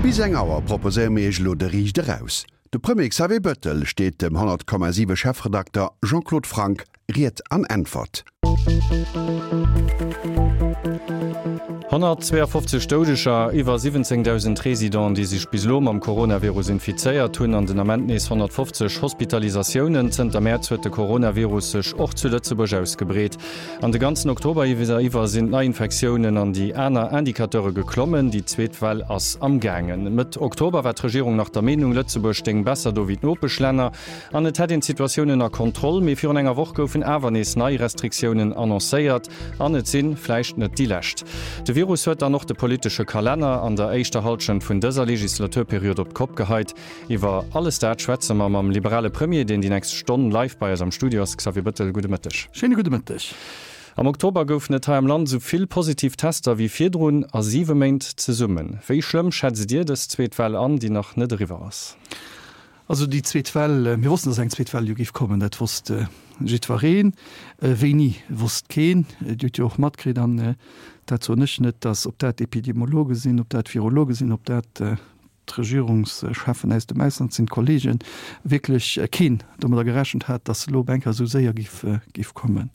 Bis eng Auer proposéiere mir Iech elo de Riicht eraus. De Premier Xavier Bettel steet dem 100,7 Chefredakter Jean-Claude Franck Ried an Äntwert. 152 Doudeger, iwwer 17.000 Residenten, déi sech bis elo mam Coronavirus infizéiert hunn an den Ament nees 150 Hospitalisatiounen. Zënter Mäerz huet de Coronavirus sech och zu Lëtzebuerg ausgebreet. An de ganzen Oktober iwwer sinn d'Neiinfektiounen an déi aner Indicateure geklommen. Déi zweet Well ass am gaangen. Mëtt Oktober war d'Regierung nach der Meenung, Lëtzebuerg stéing besser do wéi d'Nopeschlänner. An et hätt een d'Situatioun ënner Kontroll. Mee virun enger Woch goufen awer nees nei Restriktiounen annoncéiert. An et si vläicht net déi lescht. De Virus huet dann och de politesche Kalenner an der éischter Hallschent vun dëser Legislaturperiod op d'Kopp geheit. Iwwer alles dat schwätze mer mam liberale Premier, deen déi nächst Stonn live bei eis am Studio ass. Xavier Bettel, gudde Mëtteg. Schéine gudde Mëtteg. Am Oktober goufen et hei am Land esou vill positiv Tester wéi virdrun a siwe Méint zesummen. Wéi schlëmm schätzt Dir dës zweet Well an, déi nach net eriwwer ass? Also déi zweet Well, mir wossten, datt eng zweet Well jo géif kommen, dat wosst jiddwereen. Wéini, wosst keen. Dir hutt jo och matkritt, an dat soen ech net, datt, ob dat Epidemiologe sinn, ob dat Virologe sinn, ob dat d'Regierungscheffen aus dem Ausland sinn, d'Kollegen, wierklech keen domadder gerechent hat, datt se elo op eng Kéier esou séier géif kommen.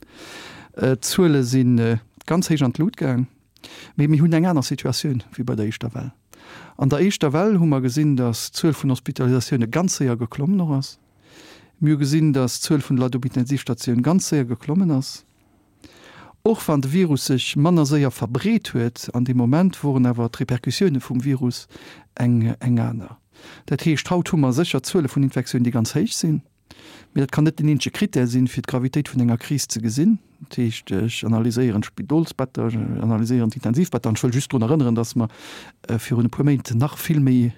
D'Zuele si ganz héich an d'Lut gaang. Mee mir hunn eng aner Situatioun wéi bei der éischter Well. An der éischter Well hu mer gesinn, datt d'Zuel vun Hospitalisatioune ganz séier geklommen och ass. Mir hu gesinn, datt d'Zuel vun de Leit op Intensivstatioun ganz séier geklommen ass. Och wann de Virus sech manner séier verbreet huet an deem Moment, woren awer d'Repercussioune vum Virus eng aner. Dat heescht, haut hu mer sécher Zuele vun Infektiounen, déi ganz héich sinn. Mee dat kann net den eenzege Critère sinn, fir d'Gravitéit vun enger Kris ze gesinn. Dat heescht, ech analyséieren d'Spidolsbetter, ech analyséieren d'Intensivbetter. An ech wëll just drun erënneren, dass mer virun e puer Méint nach vill méi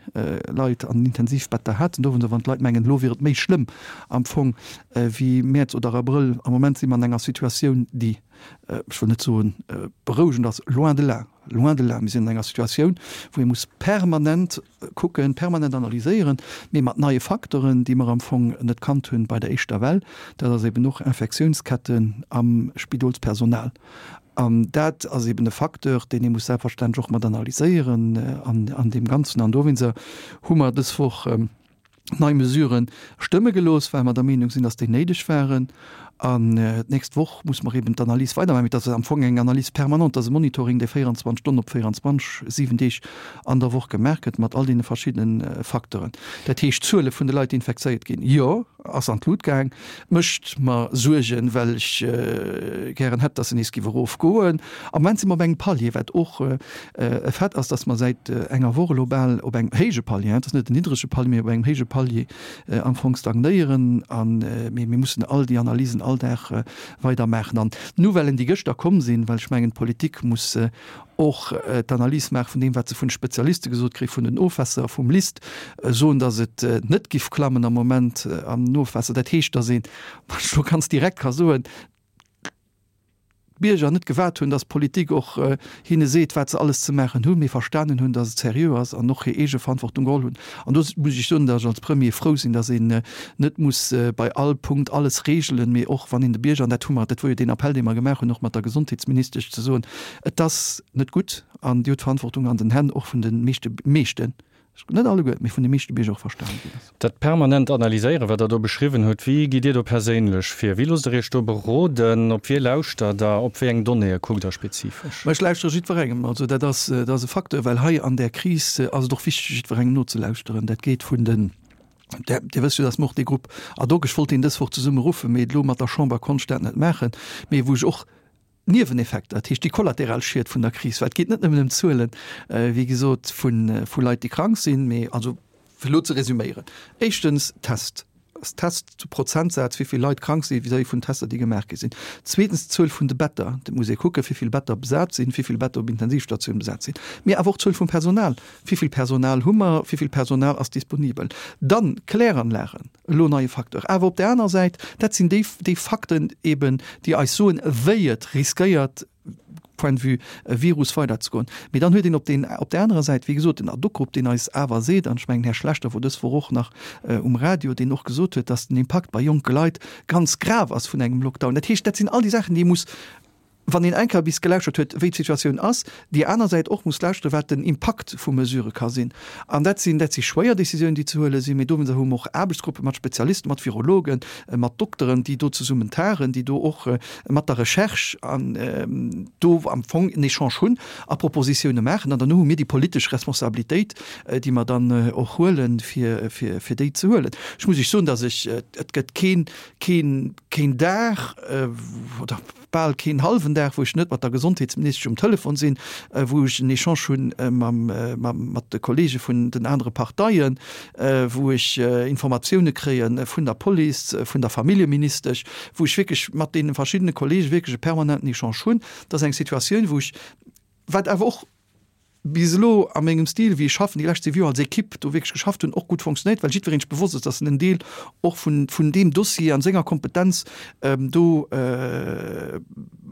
Leit an den Intensivbetter haten. Dowéinst, wann d'Leit mengen, elo wier et méi schlëmm am Fong wéi Mäerz oder Abrëll, am Moment si mer an enger Situatioun, déi, ech wëll net soen berouegend ass, loin de là, loin de là, mir sinn an enger Situatioun, wou ee muss permanent kucken, permanent analyséieren, mee mat neie Facteuren, déi mer am Fong net kannt hunn bei der éischter Well, dat ass eben och Infektiounsketten am Spidolspersonal. An dat ass eben e Facteur, deen ee muss selbstverständlech och mat analyséieren an deem Ganzen. An dowéinster hu mer dës Woch nei Mesurë stëmme gelooss, well mer der Meenung sinn, dass déi néideg waren. An d'nächst Woch muss mer eben d'Analys weidermaachen. Mee dat ass am Fong eng Analys permanente, dat ass e Monitoring, dee 24 Stonnen op 24, 7 Deeg an der Woch gemaach gëtt, mat all deene verschiddene Facteuren. Dat heescht, d'Zuele vun de Leit, déi infekzéiert ginn, jo, ass an d'Lut gaang, mécht mer Suergen, well ech gären hätt, dass se nees géif erofgoen. Am Moment si mer op engem Palier, wat och e Fait ass, dass mer säit enger Woch elo bal op engem héije Palier, et ass net en niddrege Palier, mee op engem héije Palier am Fong stagnéieren. An, mee mir mussen all déi Analysen all Dag weider maachen. An d'Nouvellen, déi gëschter komm sinn, well ech mengen, d'Politik muss och d'Analys maache vun deem, wat se vun de Spezialiste gesot kréien, vun den Ofwässer, vum LIST, soen, datt et net giff klammen am Moment am Ofwaasser. Dat heescht, datt een, wann ech elo ganz direkt ka soen, d'Bierger net gewaart hunn, datt d'Politik och hinne seet, wat se alles ze maachen hunn, mee verstanen hunn, datt et seriö ass an och hir eege Verantwortung geholl hunn. An do muss ech soen, datt ech als Premier frou sinn, datt een net muss bei all Punkt alles regelen, mee och wann een de Bierger, an dat hu mer, dat wor jo deen Appell, dee mer gemaach hunn, och mat der Gesondheetsministesch, ze soen, et ass net gutt an Dir hutt d'Verantwortung an den Hänn och vun de meeschte, meeschten, net alleguer, mee vun de meeschte Bierger och verstanen ginn ass. Dat permanent Analyséieren, wat Der do beschriwwen hutt, wéi gitt Dir do perséinlech vir? Wéi loosst Der Iech do beroden? Op wie lauschtert Der? Op wéi eng Donnéeë kuckt Der spezifesch? Ma ech lauschtere jiddwerengem. Also dat ass, dat ass e Facteur, well hei an där Kris ass et och wichteg, jiddwerengem nozelauschteren. Dat geet vun den, Dir wësst jo, datt mer och dee Grupp ad hoc, ech wollt deen dës Woch zesumme ruffen, mee elo mat der Chamber konnt ech dat net maachen, mee wou ech och Nieweneffekter, dat heescht déi kollateral Schied vun der Kris, well et geet net nëmmen ëm d'Zuelen, wéi gesot, vu Leit, déi krank sinn, mee also fir elo ze resüméieren, éischtens Test, Test zu Prozentsaz, wéi vill Leit krank si vis-à-vis vun Tester, déi gemaach gi sinn. Zweetens d'Zuel vun de Better, et muss ee kucken, wéi vill Better besat sinn, wéi vill Better op Intensivstatioun besat sinn, mee awer och d'Zuel vum Personal, wéi vill Personal hu mer, wéi vill Personal ass disponibel. Dann d'Kläranlagen. Elo neie Facteur. Awer op där aner Säit, dat sinn déi, déi Fakten eben, déi eis soen, wéi et riskéiert, point de vue Virus weiderzegoen. Mee dann huet een op deen, op där anerer Säit, wéi gesot, den Ad-hoc-Grupp, deen eis awer seet, an ech mengen, Här Schlechter wor dës Woch och nach um Radio, deen och gesot huet, dass den Impakt bei jonke Leit ganz grav ass vun engem Lockdown. Dat heescht, dat sinn all déi Saachen, déi ee muss. Wann een eng Kéier bis gelauschtert huet, wéi d'Situatioun ass, déi aner Säit och muss lauschteren, wat den Impakt vu Mesurë ka sinn. An dat sinn, dat si schwéier Décisiounen, déi ze huele sinn, mee dowéinster hu mer och Aarbechtsgruppe mat Spezialisten, mat Virologen, mat Dokteren, déi do zesummen tagen, déi do och mat der Recherche an do am Fong en Echange hunn a Propositioune maachen. An derno hu mir déi politesch Responsabilitéit, déi mer dann och huelen, fir, fir, fir déi ze huelen. Ech muss Iech soen, dass ech, et gëtt keen, keen, keen Dag oder, bal keen hallwen Dag, wou ech net mat der Gesondheetsministesch um Telefon sinn, wou ech en Echange hunn mat de Kollege vun den anere Parteien, wou ech Informatioune kréie vun der Police, vun der Familljeministesch, wou ech wierklech mat deene verschiddene Kollege wierklech e permanenten Echange hunn. Dat ass eng Situatioun, wou ech, wat awer och bis elo a mengem Stil, wéi ech schaffen, déi lescht 7 Joer als Equipe do wierklech geschafft hunn, och gutt fonctionnéiert, well jiddwereen sech bewosst ass, dass en en Deel och vun, vun deem Dossier an senger Kompetenz do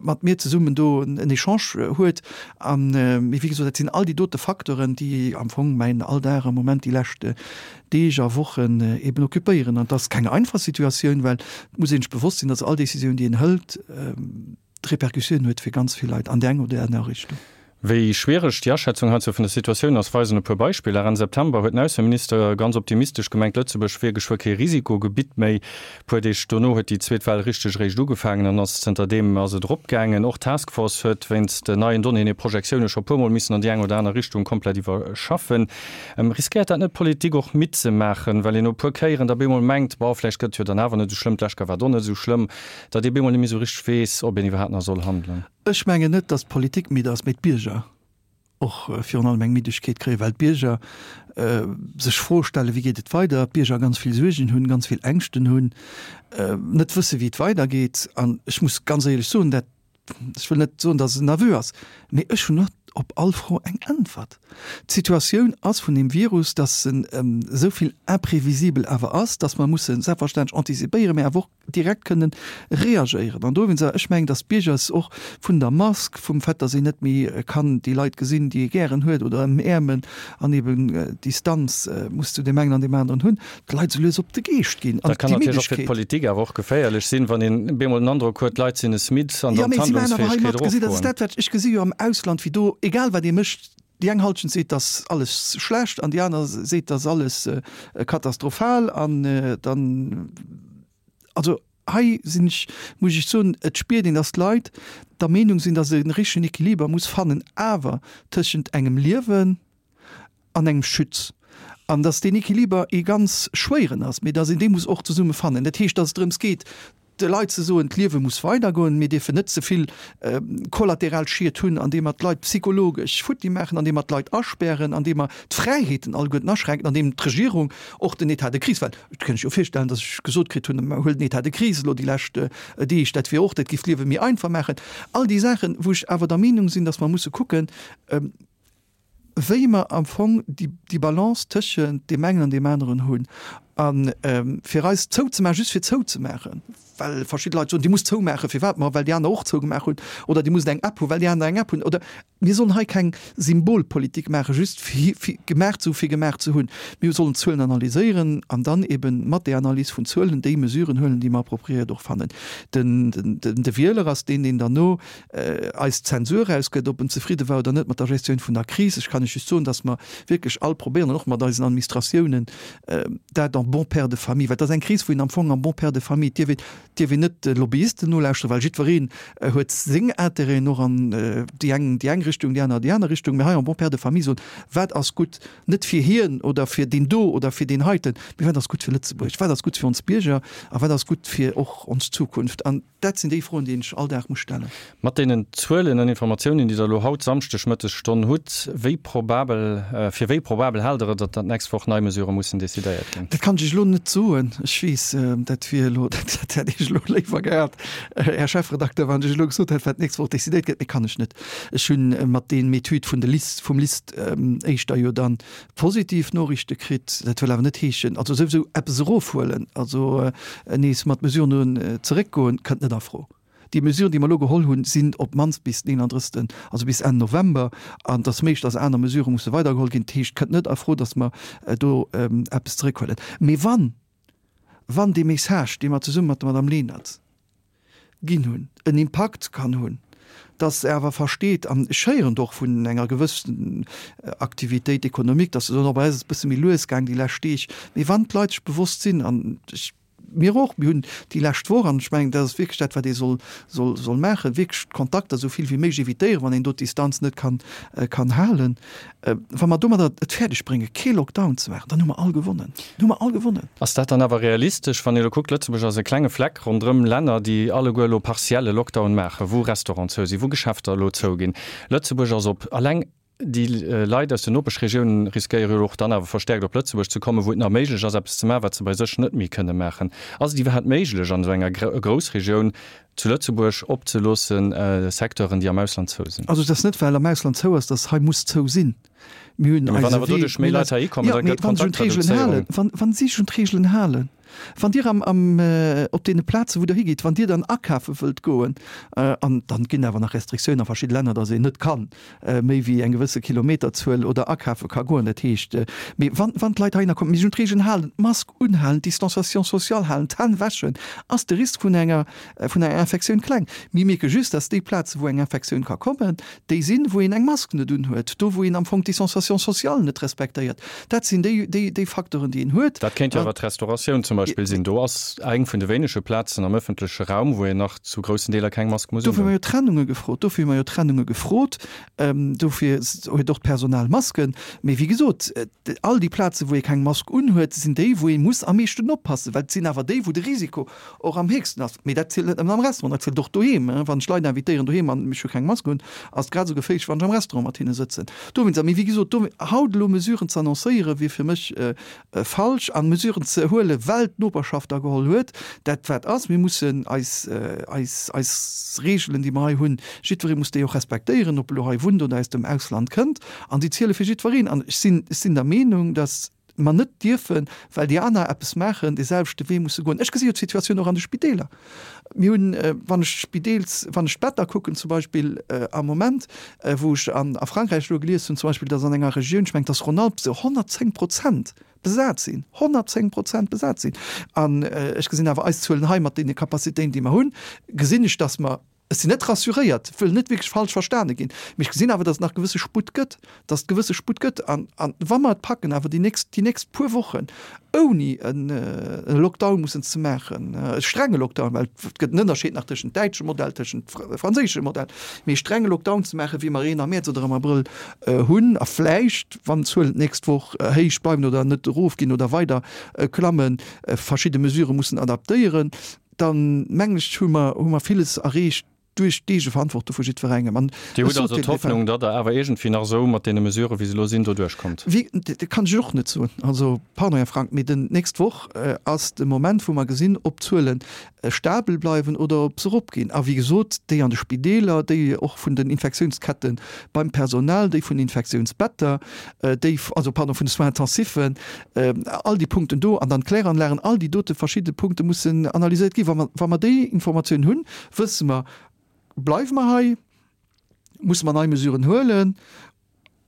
mat mir zesummen do en Echange huet. An, mee wéi gesot, dat sinn all déi dote Facteuren, déi am Fong mäin Alldag am Moment déi lescht Deeg a Wochen eben occupéieren. An et ass keng einfach Situatioun, well et muss ee sech bewosst sinn, dass all Décisioun, déi een hëlt, Repercussioun huet fir ganz vill Leit an déi eng oder déi aner Richtung. Wéi schwiereg déi Aschätzung heizou vun der Situatioun ass, weisen e puer Beispiller. Enn September huet den Ausseminister ganz optimistesch gemengt, Lëtzebuerg wier geschwë kee Risikogebitt méi. Puer Deeg dono huet déi zweet Well richteg eréischt ugefaangen an ass zënter deem ass et eropgaangen. Och d'Task Force huet wéinst neien Donnéeën hir Projektioune scho puer Mol missen an déi eng oder aner Richtung komplett iwwerschaffen. Riskéiert dat net d'Politik och midd ze maachen, well een no e puer Kéieren da bemol mengt, bon, vläicht gëtt et jo dann awer net esou schlëmm, d'lescht Kéier war et och net esou schlëmm. Datt ee bemol net méi esou richteg weess, ob een iwwerhaapt nach soll handelen. Ech mengen net, datt d'Politik midd ass, mee d'Bierger och virun allem eng Middegkeet kréien, well d'Bierger sech Froe stellen, wéi geet et weider, d'Bierger ganz vill Suergen hunn, ganz vill Ängschten hunn, net wësse wéi et weidergeet. An ech muss ganz éierlech soen, dat Ech wëll net soen, datt et en Aveu ass, mee ech hunn net op all Fro eng Äntwert. D'Situatioun ass vun deem Virus, datt en esou vill imprévisibel awer ass, datt mer musse selbstverständlech antizipéieren, mee awer och direkt kënnen reagéieren. An dowéinst, ech mengen, datt d'Bierger s och vun der Mask, vum Fait, datt een net méi kann déi Leit gesinn, déi ee gären huet oder ëmäermen an eben Distanz muss zu deem engen an deem aneren hunn, d'Leit esou lues op de Geescht ginn an Dat kann natierlech och fir d'Politik awer och geféierlech sinn, wann een bemol den Androck huet, d'Leit sinn es midd an dann d'Handlungsfäegkeet erofgoen. Dat ass dat, wat ech gesi jo am Ausland, wéi do, egal wat ee mécht, déi eng Halschent seet, dass alles schlecht an déi aner seet, dass alles katastrophal an dann, also hei sinn ech, muss ech soen, et spiert een, dass d'Leit der Meenung sinn, dass e richtegen Equiliber muss fannen awer tëschent engem Liewen, an engem Schütz, an dass deen Equiliber ee ganz schwéieren ass, mee dass een dee muss och zesumme fannen. Dat heescht, dass et drëms geet, de Leit ze soen, d'Liewe muss weidergoen, mir dierfen net ze vill kollateral Schied hunn, andeem mer d'Leit psychologesch futti maachen, andeem mer d'Leit aspären, andeem mer d'Fräiheeten alleguerten aschränken, andeem d'Regierung och den État de crise, well et kënnt ech jo virstellen, dass ech gesot kritt hunn, huel den État de crise elo déi lescht Deeg, dat wier och, dat géif d'Liewe méi einfach maachen. All déi Saachen, wou ech awer der Meenung sinn, dass mer musse kucken, wéi mer am Fong déi Balance tëschent deem engen an deem aneren hunn. A fir eis zouzemaachen, just fir zouzemaachen, well verschidde Leit soen, Dir musst zoumaachen, firwat? Ma well déi aner och zougemaach hunn. Oder Dir musst eng App hunn, well déi aner eng App hunn. Oder mir sollen hei keng Symbolpolitik maachen, just fir gemaach ze hu fir gemaach ze hunn. Mir sollen d'Zuelen analyséieren an dann eeben mat där Analys vun Zuelen déi Mesuren huelen, déi mer appropriéiert och fannen. De Wieler ass deen, deen derno eis Zensur erausgëtt, ob en zefridde war oder net mat der Gestioun vun der Kris. Ech kann lech just soen, dass mer wierklech all probéieren, an och mat eisen Administratiounen, dat en bon père de famille, well et ass eng Kris, wou een am Fong en bon père de famille, et dierf een, dierf een net de Lobbyisten nolauschteren, well jiddwereen huet seng Intérêten och an déi eng déi eng Richtung, déi aner déi aner Richtung, mä hei en bon père de famille soen, wat ass gutt, net fir hien oder fir deen do oder fir deen heiten, mä wat ass gutt fir Lëtzebuerg, wat ass gutt fir ons Bierger a wat ass gutt fir och ons Zukunft. An Dat sinn déi Froen, déi een sech all Dag muss stellen. Mat deenen Zuelen an Informatiounen, déi Der elo haut Samschdeg Mëttesstonn hutt, wéi probabel, fir wéi probabel haalt Der et, datt dat d'nächst Woch nei Mesurë mussen decidéiert ginn? Dat kann ech Iech elo net soen. Ech weess, dat wier elo, dat hätt Iech elo léiwer gehat, Här Chefredakteur, wann ech elo gesot hätt, wat d'nächst Woch decidéiert gëtt. Mee kann ech net. Ech hu mat deem Etüd vun de LIST, vum LIST éischter jo dann Positiv Noriichte kritt. Dat wëll awer net heeschen, also souwisou eppes erofhuelen, also nees mat Mesuren zeréckgoen, kënnt net a Fro. Déi Mesuren, déi mer elo geholl hunn, sinn op d'mannst bis den 31., also bis Enn November, an et ass méiglech, datt aner Mesurë musse weidergeholl ginn. Dat heescht, et kënnt net a Fro, datt mer do eppes zeréckhuelen. Mee wann, wann dee Message, dee mer zesumme mat der Madame Lenert ginn hunn, en Impakt kann hunn. Dass se awer versteet, an ech héieren et och vun enger gewëssen Activitéit économique, dass se soen, oh bei eis ass et e bësse méi lues gaang déi lescht Deeg. Mee wann d'Leit sech bewosst sinn, an ech, mir och, mir hunn déi lescht Woch, an ech mengen, dat ass wierklech dat, wat ee soll, soll, soll maachen, wierklech d'Kontakter esou vill wéi méiglech évitéieren, wann een do d'Distanz net kann, kann halen. Wa mer domadder et fäerdeg bréngen, kee Lockdown ze maachen, dann hu mer all gewonnen. Dann hu mer all gewonnen. Ass dat dann awer realistesch, wann ee elo kuckt, Lëtzebuerg ass e klenge Fleck ronderëm Länner, déi alleguer elo partielle Lockdown maachen, wou Restauranten zou sinn, wou Geschäfter elo zouginn. Lëtzebuerg ass op. Alleng déi Leit aus den Nopeschregiounen riskéiere jo och dann awer verstäerkt op Lëtzebuerg ze kommen, wou et nach méiglech ass, eppes ze maachen, wat se bei sech net méi kënne maachen. Ass et iwwerhaapt méiglech, an esou enger Groussregioun zu Lëtzebuerg opzeloossen, Secteuren, déi am Ausland zou sinn? Also et ass net, well am Ausland zou ass, datt hei muss zou sinn. Mir hunn Mee wann eise awer Wee, doduerch méi mir hunn Leit eis, heihi kommen, jo, da mee gëtt wa se un d'Reegelen halen, d'Kontaktreduzéierung. wann, wann si sech un d'Reegelen halen, wann Dir am, am, op deene Plaze wou Der higitt, wann Dir dann akafe wëllt goen, an dann ginn awer nach Restriktiounen a verschidde Länner, datt een net kann méi wéi eng gewësse Kilometerzuel oder akafe ka goen, dat heescht, mee wann, wann d'Leit heihinner kommen, mee sech un d'Reegelen halen, d'Mask unhalen, d'Distanciation sociale halen, d'Hänn wäschen, ass de Risk vun enger, vun enger Infektioun kleng. Mir mierke just, datt déi Plaze wou eng Infektioun ka kommen, déi sinn, wou een eng Mask net unhuet, do wou een am Fong d'Distanciation sociale net respektéiert. Dat sinn déi, déi, déi Facteuren, déi een huet. Dat kéint jo awer d'Restauratioun zum Beispill sinn. Do ass eng vun de wéinege Plazen am ëffentleche Raum, wou een nach zu groussen Deeler keng Mask muss Dofir hu undoen. mer jo Trennunge gefrot. Dofir hu mer jo Trennunge gefrot. Dofir huet och d'Personal Masken. Mee wéi gesot, all déi Plazen, wou ee keng Mask unhuet, sinn déi, wou ee muss am meeschten oppassen, well et sinn awer déi, wou de Risiko och am héchsten ass. Mee dat zielt net nëmmen am Restaurant, dat zielt och doheem. Wann ech Leit invitéieren doheem an ech hu keng Mask un, ass et grad esou geféierlech, wann ech am Restaurant mat hinne sëtzen. Dowéinst, a mee wéi gesot, do haut elo Mesuren ze annoncéieren, wier fir mech falsch. An Mesuren ze huelen, well d'Noperschaft der geholl huet, dat wat ass, mir mussen eis, eis, eis Reegelen, déi mer hei hunn, jiddweree muss déi och respektéieren, ob e lo hei wunnt oder aus dem Ausland kënnt. An déi ziele fir jiddwereen. An ech sinn, ech sinn der Meenung, dass mer net dierfen, well déi aner eppes maachen, dee selwechte Wee musse goen. Ech gesi jo d'Situatioun och an de Spideeler. Mir hunn, wann ech d'Spideels, wann ech d'Better kucken zum Beispill am Moment, wou ech an a Frankräich elo gelies hunn zum Beispill, datt an enger Regioun, ech mengen et ass Rhône-Alpes, se 110 Prozent besat sinn, 110 Prozent besat sinn. An ech gesinn awer eis Zuelen hei mat deene Capacitéiten, déi mer hunn, gesinn ech, datt mer, Ech sinn net rassuréiert, wëll net wierklech falsch verstane ginn, mee ech gesinn awer, datt et nach gewësse Sputt gëtt, datt et gewësse Sputt gëtt. An, an wa mer et packen, awer déi nächst, déi nächst puer Wochen ouni en e Lockdown mussen ze maachen, e strenge Lockdown, well et gëtt en Ënnerscheed nach tëschent däitschem Modell, tëschent franséischem Modell, mee e strenge Lockdown ze maachen, wéi mer een am Mäerz oder am Abrëll hunn, a vläicht, wann d'Zuelen d'nächst Woch héich bleiwen oder net erofginn oder weider klammen, verschidde Mesurë mussen adaptéieren, dann mengen ech, hu mer, hu mer villes erreecht duerch d'Eegeverantwortung vu jiddwerengem. An Dir hutt also d'Hoffnung, datt Der awer iergendwéi nach esou mat deene Mesuren, wéi se elo sinn, do duerchkommt? Wéi, dat kann ech och net soen. Also, pardon, Här Frank, mee den, d'nächst Woch ass de Moment, wou mer gesinn, ob d'Zuele stabel bleiwen oder ob se eropginn. A wéi gesot, déi an de Spideeler, déi och vun den Infektiounsketten beim Personal, déi vun den Infektiounsbetter, déi, also pardon, vun de Soins intensifen, all déi Punkten do an dann d'Kläranlagen, all déi dote verschidde Punkte mussen analyséiert ginn. Wa mer, wa mer déi Informatioun hunn, wësse mer, bleiwe mer hei, musse mer nei Mesuren huelen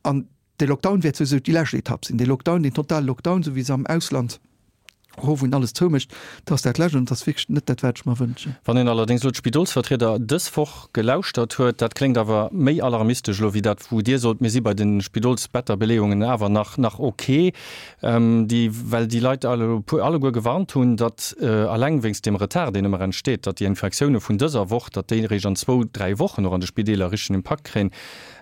an de Lockdown wäert souwisou déi lescht Etapp sinn. Dee Lockdown, deen totale Lockdown, esou wéi se am Ausland hu wou een alles zoumécht, dat ass dat Lescht an dat ass wierklech net dat, wat ech mer wënschen. Wann een allerdéngs elo d'Spidolsvertrieder dës Woch gelauschtert huet, dat kléngt awer méi alarmistesch elo wéi dat, wou Dir sot, mir si bei de Spidolsbetterbeleeungen awer nach nach ok, déi, well déi Leit alleguer gewarnt hunn, datt eleng wéinst deem Retard, deen ëmmer entsteet, datt déi Infektioune vun dëser Woch, datt déi eréischt an zwou, dräi Wochen och an de Spideeler richtegen Impakt kréien.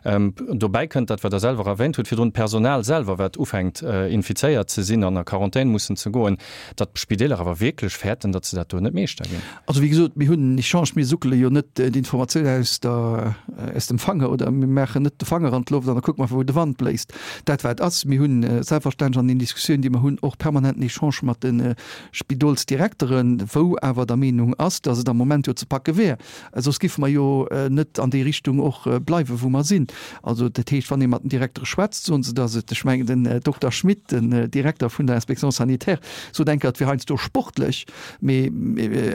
Dobäi kënnt dat, wat Der selwer erwähnt hutt virdrun, d'Personal selwer, wat ufänkt infizéiert ze sinn an a Quarantän mussen ze goen, datt d'Spideeler awer wierklech fäerten, datt se dat do net meeschter ginn. Also wéi gesot, mir hunn en Echange, mir suckele jo net d'Informatioun aus der, aus dem Fanger oder mir maachen net de Fanger an d'Loft an da kucke mer, wou de Wand bléist. Dat wat ass, mir hunn selbstverständlech an den Diskussiounen, déi mer hunn, och permanent en Echange mat de Spidolsdirekteren, wou awer der Meenung ass, datt et am Moment jo ze packe wär. Soss géife mer jo net an déi Richtung och bleiwen, wou mer sinn. Also dat heescht, wann ee mat den Direktere schwätzt, soen se, datt et, ech mengen den Dokter Schmit, den Direkter vun der Inspection sanitaire, sot. sot eng Kéier, et wier heiansdo sportlech, mee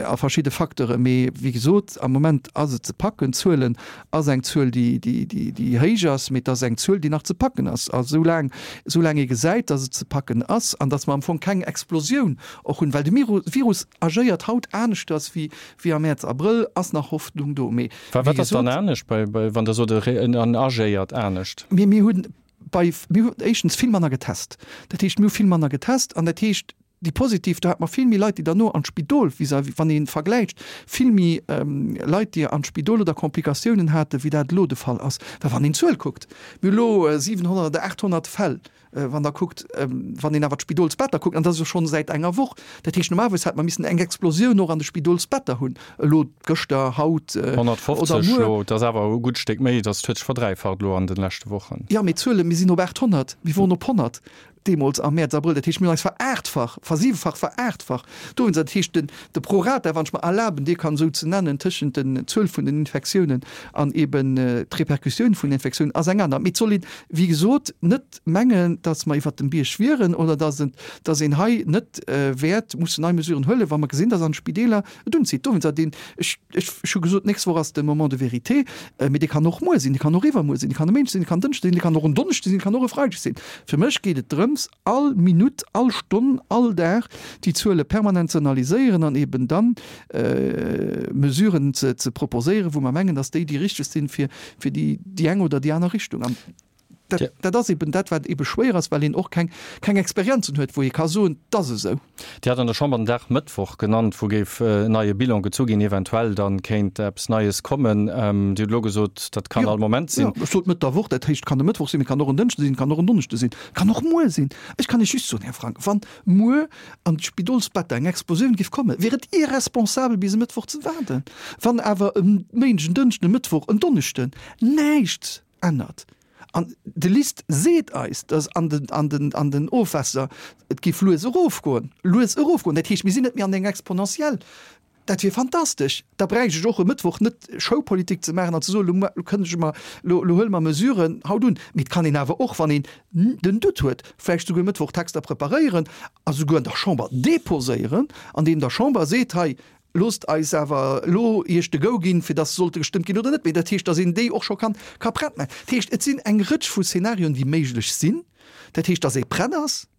a verschidde Facteuren. Mee wéi gesot, am Moment ass et ze packen. D'Zuelen ass eng Zuel, déi, déi, déi, déi héich ass, mee et ass eng Zuel, déi nach ze packen ass. A soulaang, soulaang ee gesäit, datt et ze packen ass an datt mer am Fong keng Explosioun och hunn, well de Virus agéiert haut aneschters wéi, wéi am Mäerz, Abrëll, ass nach Hoffnung do. Mee wéi Wat ass dann gesot. anescht bei, bei, wann Der sot, en agéiert anescht? Mir, mir hunn bei, mir hunn éischtens vill manner getest. Dat heescht, mir hu vill manner getest an dat heescht, déi positiv, do hat mer vill méi Leit, déi derno an d'Spidol, vis-à-vis, wann ee vergläicht, vill méi Leit, déi an d'Spidol oder Komplikatiounen haten, wéi dat elo de Fall ass. Well wann een d'Zuel kuckt, mir hu elo 700 oder 800 Fäll, wann Der kuckt, wann een awer d'Spidolsbetter kuckt, an dat ass jo schonn säit enger Woch, dat heescht, normalerweis hätt mer missen eng Explosioun och an de Spidolsbetter hunn, elo gëschter, haut oder 150 muer. elo, dat ass awer e gutt Stéck méi, dat huet sech verdräifacht elo an de leschte Wochen. Jo, mee d'Zuelen, mir sinn op 800, mir woren op 100 deemools am Mäerz, Abrëll, dat heescht, mir hunn eis verachtfach, versiwefach, veraachtfacht. Dowéinst, dat heescht, den, de Prorata, wann ech mer erlaben, dee kann esou ze nennen, tëschent den Zuel vun den Infektiounen an eben d'Repercussioun vun den Infektiounen ass eng aner. Mee et soll een, wéi gesot, net mengen, datt mer iwwert dem Bierg wieren oder datt et, datt een hei net wäert mussen nei Mesuren huelen, wa mer gesinn, datt an de Spideeler et unzitt. Dowéinst, dat een, ech, ech, ech hu gesot, d'nächst Woch ass de Moment de vérité, mee dee kann och muer sinn, dee kann och iwwermuer sinn, dee kann e Méindeg sinn, dee kann en Dënschde sinn, dee kann och en Donneschde sinn, dee kann och e Freideg sinn. Fir mech geet et drëms, all Minutt, all Stonn, all Dag déi Zuele permanent ze analyséieren an eben dann Mesuren ze, ze proposéieren, wou mer mengen, datt déi déi richteg sinn, fir, fir déi, déi eng oder déi aner Richtung. An dat, dat ass eben dat, wat ebe schwéier ass, well een och keng, keng Experienzen huet, wou ee ka soen, 't ass esou. Dir hat an der Chamber den Dag Mëttwoch genannt, wou géif en neie Bilan gezu ginn, eventuell dann kéint eppes Neies kommen. Dir hutt elo gesot, dat kann all Moment sinn. Jo, ech sot Mëtt der Woch, dat heescht, et kann e Mëttwoch sinn, et kann och en Dënschde sinn, et kann och en Donneschde sinn, et kann och muer sinn. Ech kann Iech just soen, Här Frank, wann muer an d'Spidolsbetter eng Explosioun géif kommen, wier et irresponsabel bis e Mëttwoch ze waarden. Wann awer e Méindeg, en Dënschden, e Mëttwoch, en Donneschden näischt ännert, an de LIST seet eis, datt an den, an den, an den Ofwässer et géif lues erofgoen, lues erofgoen, dat heescht, mir sinn net méi an enger Exponentielle, dat wier fantastesch. Da bräicht ech och e Mëttwoch net Showpolitik ze maachen an ze soen, elo elo kënnege mer, elo elo huele mer Mesuren haut un. Mee et kann een awer och, wann een den Doute huet, vläicht souguer e Mëttwoch Texter preparéieren a souguer an der Chamber deposéieren, andeem der Chamber seet, hei, Loosst eis awer elo Iech de Go ginn, fir dass se sollte gestëmmt ginn oder net. Mee dat heescht, dass een déi och scho kann, ka prett maachen. Dat heescht, et sinn eng Rëtsch vu Szenarioen, déi méiglech sinn. Dat heescht, dass ee prett ass,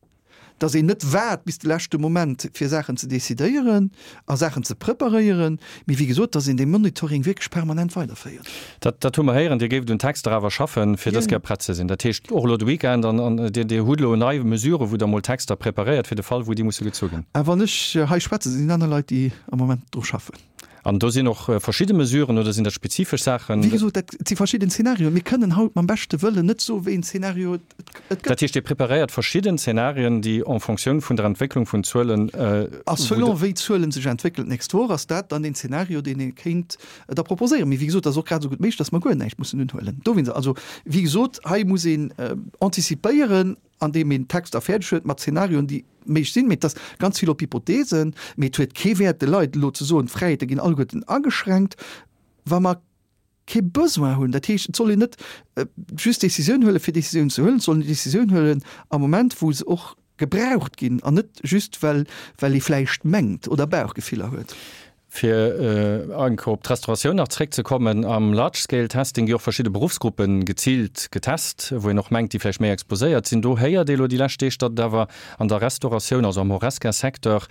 dass een net waart bis de leschte Moment, fir Saachen ze decidéieren a Saachen ze preparéieren, mee wéi gesot, dass een dee Monitoring wierklech permanent weiderféiert. Dat, dat hu mer héieren. Dir géift un Texter awer schaffen, fir dës Kéier prett ze sinn. Dat heescht, och elo de Weekend, an, an Dir, Dir hutt elo nei Mesuren, wou Der emol Texter preparéiert fir de Fall, wou déi musse gezu ginn. A wann ech hei schwätzen, sinn aner Leit, déi am Moment dru schaffen. An do sinn och verschidde Mesuren, oder sinn dat spezifesch Saachen? Wéi gesot, dat si verschidden Zenarioen. Mir kënnen haut mam beschte Wëllen net soen, wéi een Zenario et gëtt. Dat heescht, Dir preparéiert verschidden Zenarien, déi en Fonctioun vun der Entwécklung vun Zuelen. A selon wéi d'Zuelen sech entwéckelen d'nächst Woch, ass dat dann deen Zenario, deen ee kéint da proposéieren. Mee wéi gesot, et ass och grad esou gutt méiglech, datt mer guer näischt mussen unhuelen. Dowéinst, also wéi gesot, hei muss een antizipéieren, andeem een Texter fäerdeg huet mat Zenarioen, déi méiglech sinn. Mee et ass ganz vill op Hypotheesen. Mee et huet kee Wäert, de Leit elo ze soen, d'Fräiheete ginn alleguerten ageschränkt, wa mer kee Besoin hunn. Dat heescht, et soll een net just Décisioun huelen, fir Décisioun ze huelen. Et soll een Décisioun huelen am Moment, wou se och gebraucht ginn an net just, well, well ee vläicht mengt oder Bauchgefiller huet. Fir eng Kéier op d'Restauratioun nach zréckzekommen, Am Large-Scale-Testing gi och verschidde Beruffsgruppe geziilt getest, wou een och mengt, déi vläicht méi exposéiert sinn. Do héiert ee lo déi lescht Deeg, datt et awer an der Restauratioun, also am Horesca-Secteur,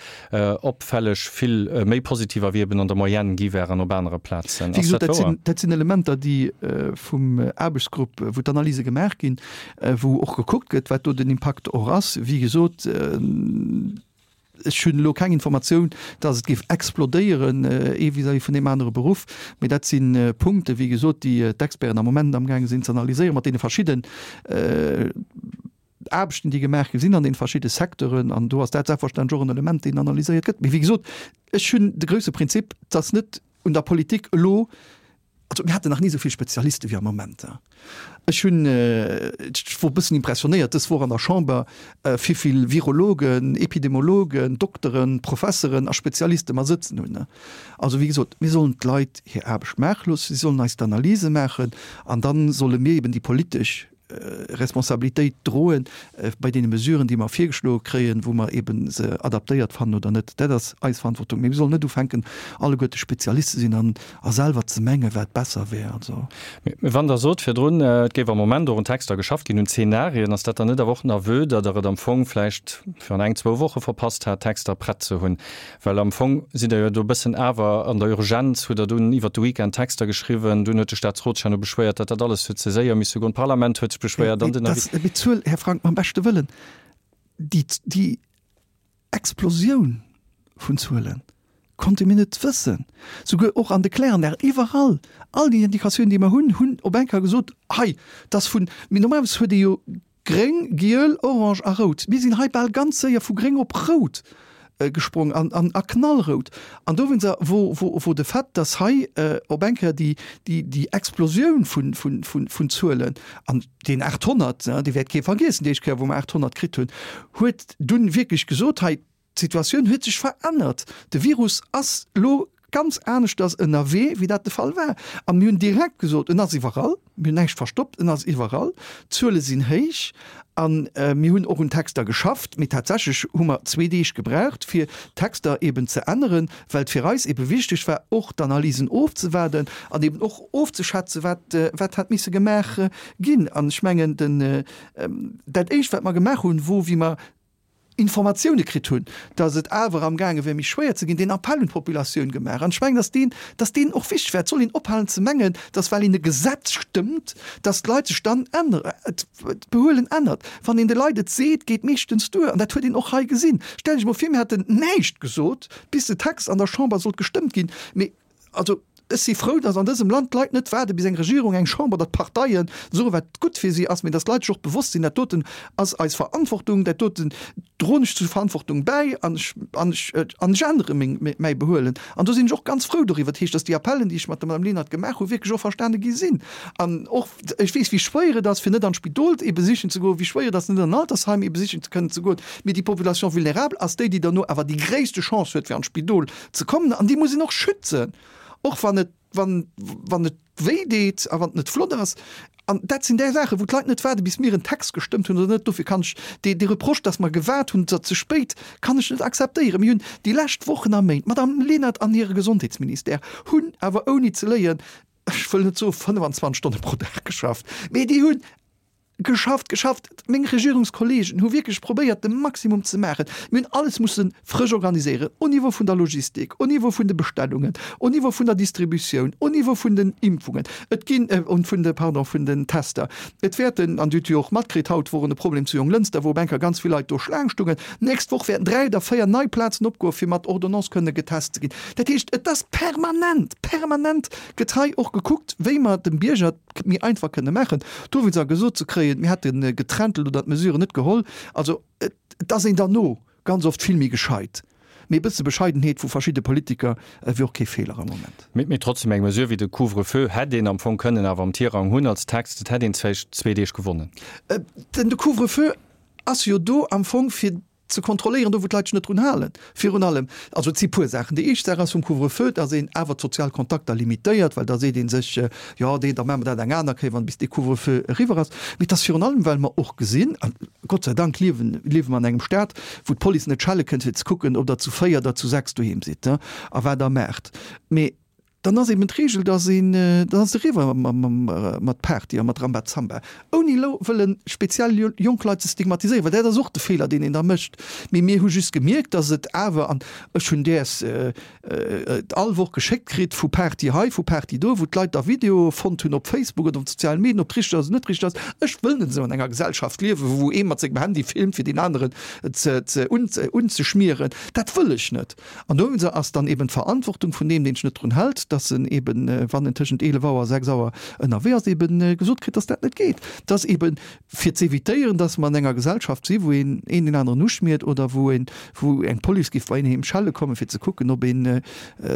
opfälleg vill méi Positiver wéi eben an der Moyenne gi wären op anere Plazen. Wéi gesot, dat sinn, dat sinn Elementer, déi vum Aarbechtsgrupp, wou d'Analyse gemaach ginn, wou och gekuckt gëtt, wat do den Impakt och ass. Wéi gesot, Ech hunn elo keng Informatioun, dass et géif explodéieren, ee vis-à-vis vun deem anere Beruff. Mee dat si Punkte, wéi gesot, déi d'Experten am Moment amgaange sinn ze analyséieren, mat deene verschidden Aarbechten, déi gemaach gi sinn an deene verschidde Secteuren. An do ass dat selbstverständlech och en Element, deen analyséiert gëtt. Mee wéi gesot, ech hunn de grouse Prinzip, dass net un der Politik elo, Also mir haten nach ni esou vill Spezialiste wéi am Moment. Ech hunn, ech wor e bëssen impressionéiert dës Woch an der Chamber, wéi vill Virologen, Epidemologen, Dokteren, Professeren a Spezialiste mer sëtzen hunn. Also wéi gesot, mir sollen d'Leit hir Aarbecht maache loossen, si sollen eis d'Analyse maachen an da solle mir eben déi politesch. Responsabilitéit droen bei deene Mesuren, déi mer virgeschloe kréien, wou mer eeben se adaptéiert fannen oder net. Dat ass eis Verantwortung. Mee mir sollen net ufänken, alleguerte Spezialist ze sinn an a selwer ze mengen, wat besser wär. Also. Mee wann Der sot virdrun, et géif am Moment och un Texter geschafft ginn, un Zeenarien, ass dat dann net awer och en Aveu, datt Der et am Fong vläicht virun eng, zwou Woche verpasst hat, Texter prett ze hunn? Well am Fong sidd Der jo do e bëssen awer an der Urgenz, hutt Der dunn iwwert de Weekend Texter geschriwwen, dunn huet de Staatsrot sech herno beschwéiert, datt dat alles huet ze séier misse goen, d'Parlament huet sech beschwéiert an den Avis. Mee d'Zuel, Här Frank, mam beschte Wëllen, déi, déi Explosioun vun Zuelen konnte mir net wëssen, souguer och an de Kläranlagen, iwwerall, all déi Indikatiounen, déi mer hunn, hunn op eng Kéier gesot, hei, dass vun, mee normalerweis huet ee jo Gréng, giel, orange a rout. Mir sinn hei bal ganz séier vu gréng op rout gesprong an a knallrout. An dowéinster wor, wor de Fait, dass hei op eng Kéier déi, déi, déi Explosioun vun, vun, vun, vun Zuelen, an deen 800, dee wäert kee vergiessen, déi éischt Kéier wou mer 800 kritt hunn, huet dunn wierklech gesot, hei, D'Situatioun huet sech verännert. De Virus ass elo ganz aneschters ënnerwee, wéi dat de Fall war. A mir hunn direkt gesot, en ass iwwerall, mir hunn näischt verstoppt, en ass iwwerall, d'Zuele sinn héich. A mir hunn och un Texter geschafft, mee tatsächlech hu mer zwee Deeg gebraucht, fir d'Texter eeben ze änneren, well et fir eis eebe wichteg war, och d'Analysen ofzewaarden an eeben och ofzeschätzen, wat, wat hätt misse gemaach ginn. An ech mengen, den, dat Éischt, wat mer gemaach hunn, wor, wéi mer Informatioune kritt hunn, datt et awer am gaange wär méi schwéier ze ginn, deen Appell un d'Populatioun gemaach. An ech mengen, datt deen, datt deen och wichteg war. Et soll een ophalen ze mengen, datt well een e Gesetz stëmmt, datt d'Leit sech dann änneren, d'Behuelen ännert. Wann een de Leit et seet, geet meeschtens duer. An dat huet een och hei gesinn. Stell Iech emol vir, mir hätten näischt gesot, bis de Text an der Chamber sollt gestëmmt ginn. Mee Also, ech si frou, datt an dësem Land d'Leit net waarde bis eng Regierung, eng Chamber oder d'Parteien soen, wat gutt fir si ass, mee datt d'Leit sech och bewosst sinn, dat doten ass eis Verantwortung, dat doten droen ech zur Verantwortung bäi an ech, an ech, an ech ännere meng, mäi Behuelen. An do sinn ech och ganz frou doriwwer. Dat heescht, datt déi Appellen, déi ech mat der Madame Lenert gemaach hu, wierklech och verstane gi sinn. An och, ech weess, wéi schwéier et ass, fir net an d'Spidol ee besichen ze goen, wéi schwéier et ass, net an en Altersheim ee besichen ze kënnen ze goen, mee déi Population vulnérable ass déi, déi derno awer déi gréisste Chance huet, fir an d'Spidol ze kommen an déi muss een och schützen, och wann et, wann, wann et wéi deet a wann et net flott ass. An dat sinn där Saachen, wou d'Leit net waarde bis mir en Text gestëmmt hunn oder net. Dofir kann ech dee, dee Reproche, dass mer gewaart hunn, oder ze spéit, kann ech net akzeptéieren. Mir hunn déi lescht Wochen a Méint, d'Madame Lenert an hire Gesondheetsministère hunn awer ouni ze léien, ech wëll net soe 25 Stonne pro Dag geschafft, mee déi hunn Geschafft, geschafft! Meng Regierungskollegen hu wierklech probéiert, de Maximum ze maachen. Mir hunn alles musse frësch organiséieren, au Niveau vun der Logistik, au Niveau vun de Bestellungen, au Niveau vun der Distributioun, au Niveau vun den Impfungen, et ginn, vun de, pardon, vun den Tester. Et wäerten, an Dir hutt jo och matkritt, haut wor en e Problem zu Jonglënster, wou op eng Kéier ganz vill Leit do Schlaang stungen. D'nächst Woch wäerten dräi oder véier nei Plazen opgoen, fir mat Ordonnance kënne getest ze ginn. Dat heescht, et ass permanent, permanent gëtt hei och gekuckt, wéi mer dem Bierger, méi einfach kënne maachen. Dowéinst a gesot ze kréien, mir hätte geträntelt oder d'Mesuren net geholl, also et ass een derno ganz oft vill méi gescheit. Mee e bësse Bescheidenheet vu verschidde Politiker wier och kee Feeler am Moment. Mee trotzdem, eng Mesure wéi de Couvre-feu hätt een am Fong kënnen awer am Tirang hunn als Text. Et hätt een vläicht zwee Deeg gewonnen. Den de Couvre-feu ass jo do am Fong fir ze kontrolléieren, do wou d'Leit sech net drun halen, virun allem. Also et si puer Saachen. Déi éischt Saach ass vum Couvre-feu, dass een awer d'sozial Kontakter limitéiert, well da seet ee sech, jo dee, da maache mer dat eng aner Kéier, wann bis dee Couvre-feu eriwwer ass. Mee et ass virun allem, well mer och gesinn, a Gott sei Dank liewen, liewe mer an engem Staat, wou d'Police net schelle kënnt, fir ze kucken, ob Der zu véier oder zu sechs doheem sidd a wat Der maacht. Mee Dann ass eben d'Regel, dass een, dann ass et eriwwer mat Party a mat Rambazamba, ouni elo wëlle speziell jonk Leit ze stigmatiséieren, well dat ass och de Feeler, deen een da mécht. Mee mir hu just gemierkt, dass et awer, an ech hunn däers all Woch geschéckt kritt, vu Party hei, vu Party do, wou d'Leit da Videoe fonnt hunn op Facebook oder op de sozialen Medien, ob et richteg ass oder net richteg ass. Ech wëll net esou an enger Gesellschaft liewen, wou ee mat sengem Handy filmt, fir deen aneren ze unzeschmieren. Dat wëll ech net. An dowéinster ass dann eben d'Verantwortung vun deem, deen sech net drun hält, dass en eben, wann en tëschent 11 Auer a 6 Auer ënnerwee ass, eben gesot kritt, dass dat net geet. Dass eben, fir z'évitéieren, dass mer an enger Gesellschaft si wou een een deen aneren uschmiert oder wou een, wou eng Police géif bei een heem schelle kommen, fir ze kucken, ob ee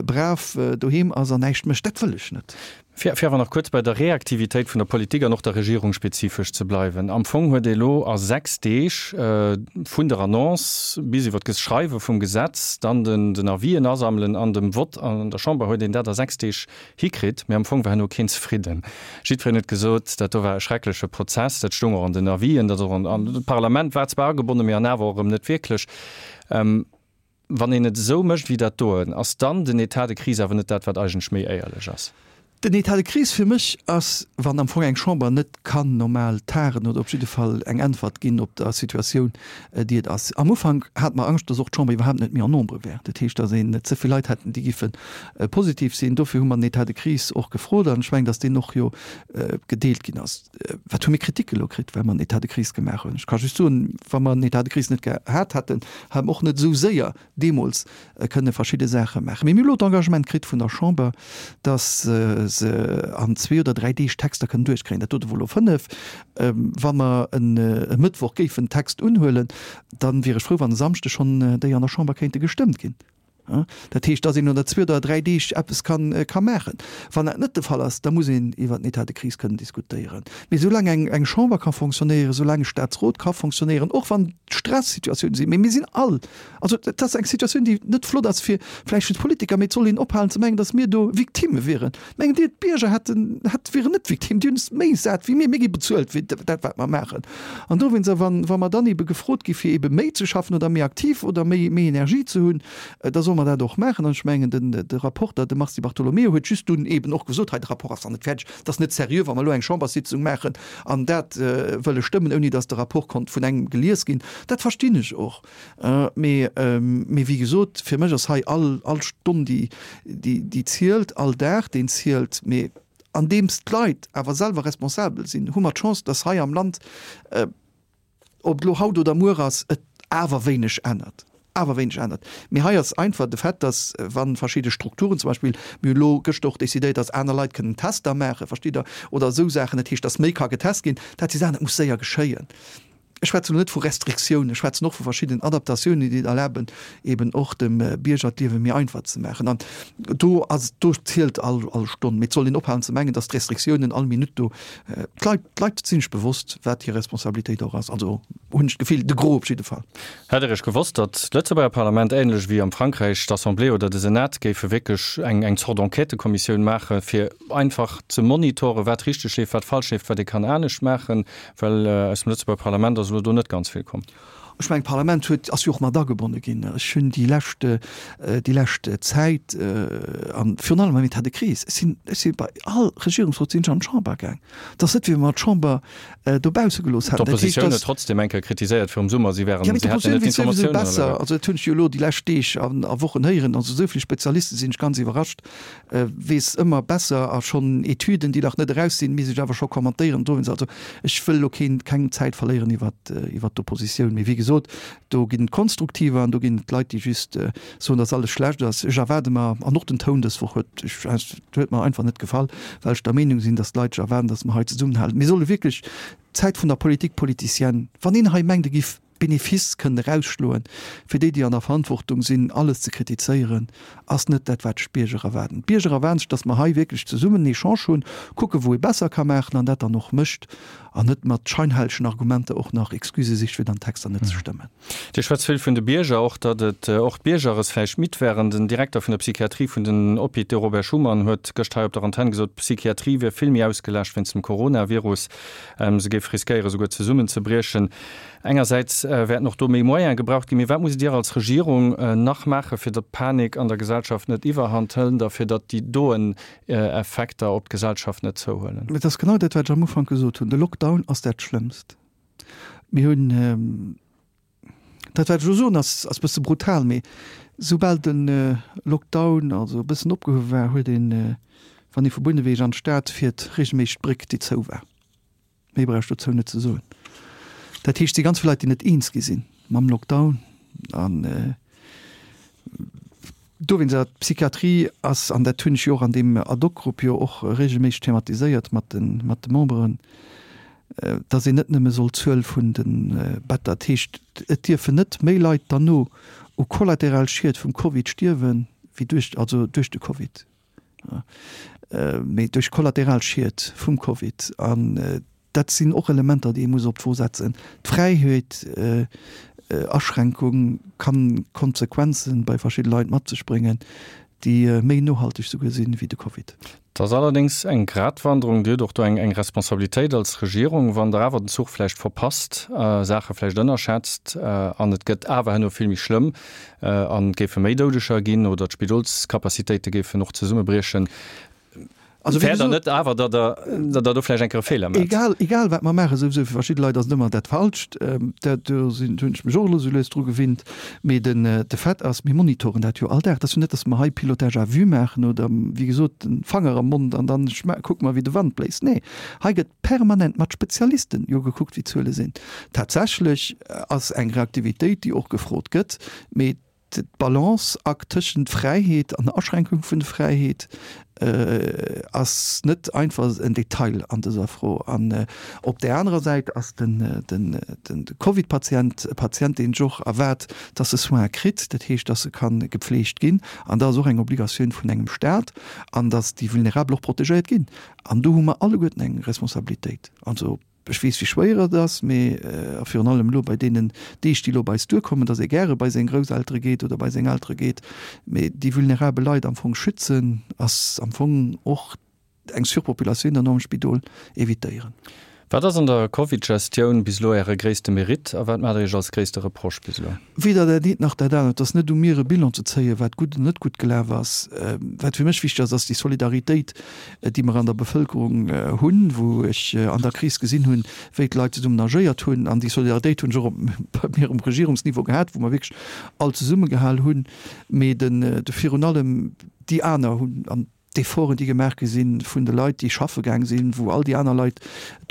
brav doheem ass an näischt mécht. Dat wëll ech net. Fir awer nach kuerz bei der Reaktivitéit vun der Politik an och der Regierung spezifesch ze bleiwen, Am Fong huet ee elo a 6 Deeg vun der Annonce bis iwwer d'Schreiwe vum Gesetz, dann den Avisen asammelen an dem Vott an der Chamber huet een dat a 6 Deeg hikritt. Mee am Fong war herno keen zefridden. Jiddwereen huet gesot, dat do war e schreckleche Prozess. Dat stoung och an den Avisen, dat och an, d'Parlament war zwar agebonnen, mee an awer och erëm net wierklech. Wann een et esou mécht wéi dat doen, ass dann den État de crise awer net dat, wat eigentlech méi éierlech ass? Den État de crise fir mech ass, wann am Fong eng Chamber net kann normal tagen oder op jidde Fall eng Äntwert ginn op der Situatioun, déi et ass. Am Ufank hate mer Angscht, dass och d'Chamber iwwerhaapt net méi en nombre wär, dat heescht, dass een ze vill Leit hätten, déi giffe positiv sinn. Dofir hu mer den État de crise och gefrot an ech mengen, dass deen och jo gedeelt ginn ass. Wat hu mir Kritik elo kritt, well mer en État de crise gemaach hunn? Ech ka just soen, wa mer en État de crise net gehat hätten, hätte mer och net esou séier deemools kënne verschidde Saache maachen. Mee mir hu elo d'Engagement kritt vun der Chamber, datt se an zwee oder dräi Deeg Texter kënnen duerchkréien. Dat dote wor elo fënnef. Wa mer e Mëttwoch géifen Text unhuelen, da wier ech frou, wann e Samschdeg schonn déi an der Chamber kéinte gestëmmt ginn. Dat heescht, datt een no der zwee oder dräi Deeg eppes ka maachen. Wann dat net de Fall ass, da muss een iwwer den État de crise kënnen diskutéieren. Mee soulaang eng Chamber ka fonctionnéieren, soulaang e Staatsrot ka fonctionnéieren, och wann Stressituatiounen sinn, mee mir sinn all, also dat ass eng Situatioun, déi net flott ass fir vläicht fir d'Politiker, mee et soll een ophalen ze mengen, datt mir do Victimme wieren. Mengt Dir, d'Bierger hätten, hätt, wieren net Victime? Déi hunn es méi sat wéi mir. Mir gi bezuelt fir dat, wat mer maachen. An dowéinst, a wann, wa mer dann ebe gefrot gi fir ebe méi ze schaffen oder méi aktiv oder méi, méi Energie ze hunn, da solle mer dat och maachen. An ech mengen, den, de Rapporter, de Mars Di Bartolomeo, huet just dunn eben och gesot, hei, de Rapport ass nach net fäerdeg, et ass net seriö, wa mer elo eng Chamberssitzung maachen an dat wëlle stëmmen, ouni datt de Rapport konnt vun engem gelies ginn. Dat verstinn ech och. Mee, mee wéi gesot, fir mech ass hei all, all Stonn, déi, déi, déi zielt, all Dag, deen zielt. Mee andeems d'Leit awer selwer responsabel sinn, hu mer d'Chance, dass hei am Land, ob et elo haut oder muer ass, et awer wéineg ännert, awer wéineg ännert. Mee hei ass einfach de Fait, dass wa verschidde Strukturen, zum Beispill, mir hunn elo gëschter och decidéiert, dass aner Leit kënnen Tester maachen, verstitt Der, oder esou Saachen, dat heescht, dass méi ka getest ginn, dat si Saachen, dat muss séier geschéien. Ech schwätzen elo net vu Restriktiounen, ech schwätzen och vu verschiddenen Adaptatiounen, déi et erlaben, eben och dem Bierger d'Liewe méi einfach ze maachen. An do ass, do zielt all, all Stonn. Mee et soll een ophalen ze mengen, dass d'Restriktiounen all Minutt do, d'Leit, d'Leit sinn sech bewosst, wat hir Responsabilitéit och ass. Also hunn ech d'Gefill, de Gros op jidde Fall. Hätt Der Iech gewosst, datt d'Lëtzebuerger Parlament, ähnlech wéi am Frankräich d'Assemblée oder de Senat, géife wierklech eng, eng Zort Enquêtëkommissioun maache fir einfach ze monitoren, wat richteg leeft, wat falsch leeft, wat ee kann anescht maachen? Well aus dem Lëtzebuerger Parlament ass elo do net ganz vill komm. Ech mengen, d'Parlament huet, ass jo och mat agebonne ginn. Ech hunn déi lescht, déi lescht Zäit a virun allem am État de crise, ech sinn, ech si bei all Regierungsrot sinn ech an d'Chamber gaang. Et ass net, wéi wa mer d'Chamber dobausse gelooss hätten. Dat heescht, D'Oppositioun huet trotzdem eng Kéier kritiséiert virum Summer, si wären, si hätten net d'Informatiounen alleguer. Also dat hunn ech jo elo déi lescht Deeg a Wochen héieren. Also esou vill Spezialiste sinn ech ganz iwwerrascht, weess ëmmer besser a schonn Etüden, déi nach net eraus sinn, misst ech awer scho kommentéieren. Dowéinst, also ech wëll elo keen, keng Zäit verléieren iwwert, iwwert d'Oppositioun. Mee wéi gesot, do ginn et Konstruktiver an do ginn et Leit, déi just soen, datt alles schlecht ass. Ech erwaarde mer, an och den Toun dës Woch huet, ech, huet mer einfach net gefall, well ech der Meenung sinn, datt d'Leit sech erwaarden, datt mer hei zesummenhalen. Mir solle wierklech d'Zäit vun der Politique politicienne, wann een hei mengt, e giff Benefice kënnen erausschloen, fir déi, déi an der Verantwortung sinn, alles ze kritizéieren, ass net dat, wat sech d'Bierger erwaarden. D'Bierger erwaarden sech, datt mer hei wierklech zesummen en Echange hunn, kucken, wou ee besser ka maachen an dat dann och mécht an net mat scheinhellegen Argumenter och nach Excusë sicht, fir dann Texter net ze stëmmen. Dir schwätzt vill vun de Bierger, och datt et och d'Bierger es vläicht midd wären. Den Direkter vun der Psychiatrie vun den Hôpitaux, Robert Schuman, huet gëscht hei op der Antenn gesot, d'Psychiatrie wier vill méi ausgelaascht wéinst dem Coronavirus. Se géif riskéiere souguer zesummenzebriechen. Engersäits wäerten och do méi Moyene gebraucht ginn. Mee wat musst Dir als Regierung nach maachen, fir datt d'Panik an der Gesellschaft net iwwerhand hëlt a fir datt déi doen Effekter op d'Gesellschaft net zouhuelen? Et ass genau dat, wat ech am Ufank gesot hunn, De Lockdown ass dat Schlëmmst. Mir hunn, dat wat ech elo soen, ass e bësse brutal, mee soubal de Lockdown also e bëssen opgehuewe war, huet een, wann ee vu Bouneweg an d'Stad fiert, regelméisseg d'Bréck, déi zou war. Méi brauch ech dozou net ze soen. Dat heescht, et si ganz vill Leit, déi net eens gi sinn mam Lockdown. An dowéinst, awer d'Psychiatrie ass, an dat hunn ech jo och an deem Ad-hoc-Grupp jo och regelméisseg thematiséiert mat de, mat de Memberen, datt een net nëmme soll d'Zuel vun de Better, dat heescht, et dierfen net méi Leit derno u kollateral Schied vum Covid stierwen, wéi duerch, also duerch de Covid. mee duerch kollateral Schied vum Covid. An dat sinn och Elementer, déi ee muss op d'Wo setzen. D'Fräiheet, Aschränkung kann Konsequenzen bei verschidde Leit mat sech bréngen, déi méi nohalteg souguer sinn wéi de Covid. Et ass allerdéngs eng Gratwanderung. Dir hutt och do eng eng Responsabilitéit als Regierung, wann Der awer den Zuch vläicht verpasst, Saache vläicht ënnerschätzt an et gëtt awer herno vill méi schlëmm an et géife méi Doudeger ginn oder d'Spidolscapacitéite géifen och zesummebriechen. Also wéi Fäert Der net awer, datt Der, datt Der do vläicht eng Kéier e Feeler maacht? Egal, egal wat mer maachen, souwisou fir verschidde Leit ass et ëmmer dat Falscht. Dat, do sinn, do hunn ech mech och elo sou lues dru gewinnt. Mee den, de Fait ass, mir monitoren dat jo all Dag. Et ass jo net, datt mer hei Pilotage à vue maachen oder, wéi gesot, den Fanger am Mond an dann kucke mer, wéi de Wand bléist. Nee, hei gëtt permanent mat Spezialisten jo gekuckt, wéi d'Zuele sinn. Tatsächlech ass eng Reaktivitéit, déi och gefrot gëtt, mee D'Balanceakt tëschent Fräiheet an Aschränkung vun de Fräiheet ass net einfach en Detail an dëser Fro. An op där anerer Säit ass de Covid-Patient e Patient, deen sech och erwaart, dass e Soins kritt, dat heescht, dass e ka gepfleegt ginn. An dat ass och eng Obligatioun vun engem Staat, an dass déi Vulnerabel och protegéiert ginn. An do hu mer alleguerten eng Responsabilitéit. Also Ech weess, wéi schwéier et ass, mee, a virun allem elo bei deenen Deeg, déi elo op eis duerkommen, dass ee gäre bei seng Grousseltere geet oder bei seng Eltere geet, mee déi vulnerabel Leit am Fong schützen, ass am Fong och eng Surpopulatioun dann och am Spidol évitéieren. Wat ass an der Covid-Gestioun bis elo Äre gréisste Meritt a wat maacht Der Iech als gréisste Reproche bis elo? Weder dat eent nach dat anert. Et ass net u mir, e Bilan ze zéien, wat gutt an net gutt gelaf ass. Wat fir mech wichteg ass, ass déi Solidaritéit, déi mer an der Bevëlkerung hunn, wou ech an der Kris gesinn hunn, wéi d'Leit zesummen agéiert hunn. An déi Solidaritéit hunn ech och bei mir um Regierungsniveau gehat, wou mer wierklech all zesummegehal hunn. Mee de virun allem déi aner hunn an D'Efforten, déi gemaach gi sinn vun de Leit, déi schaffe gaang sinn, wou all déi aner Leit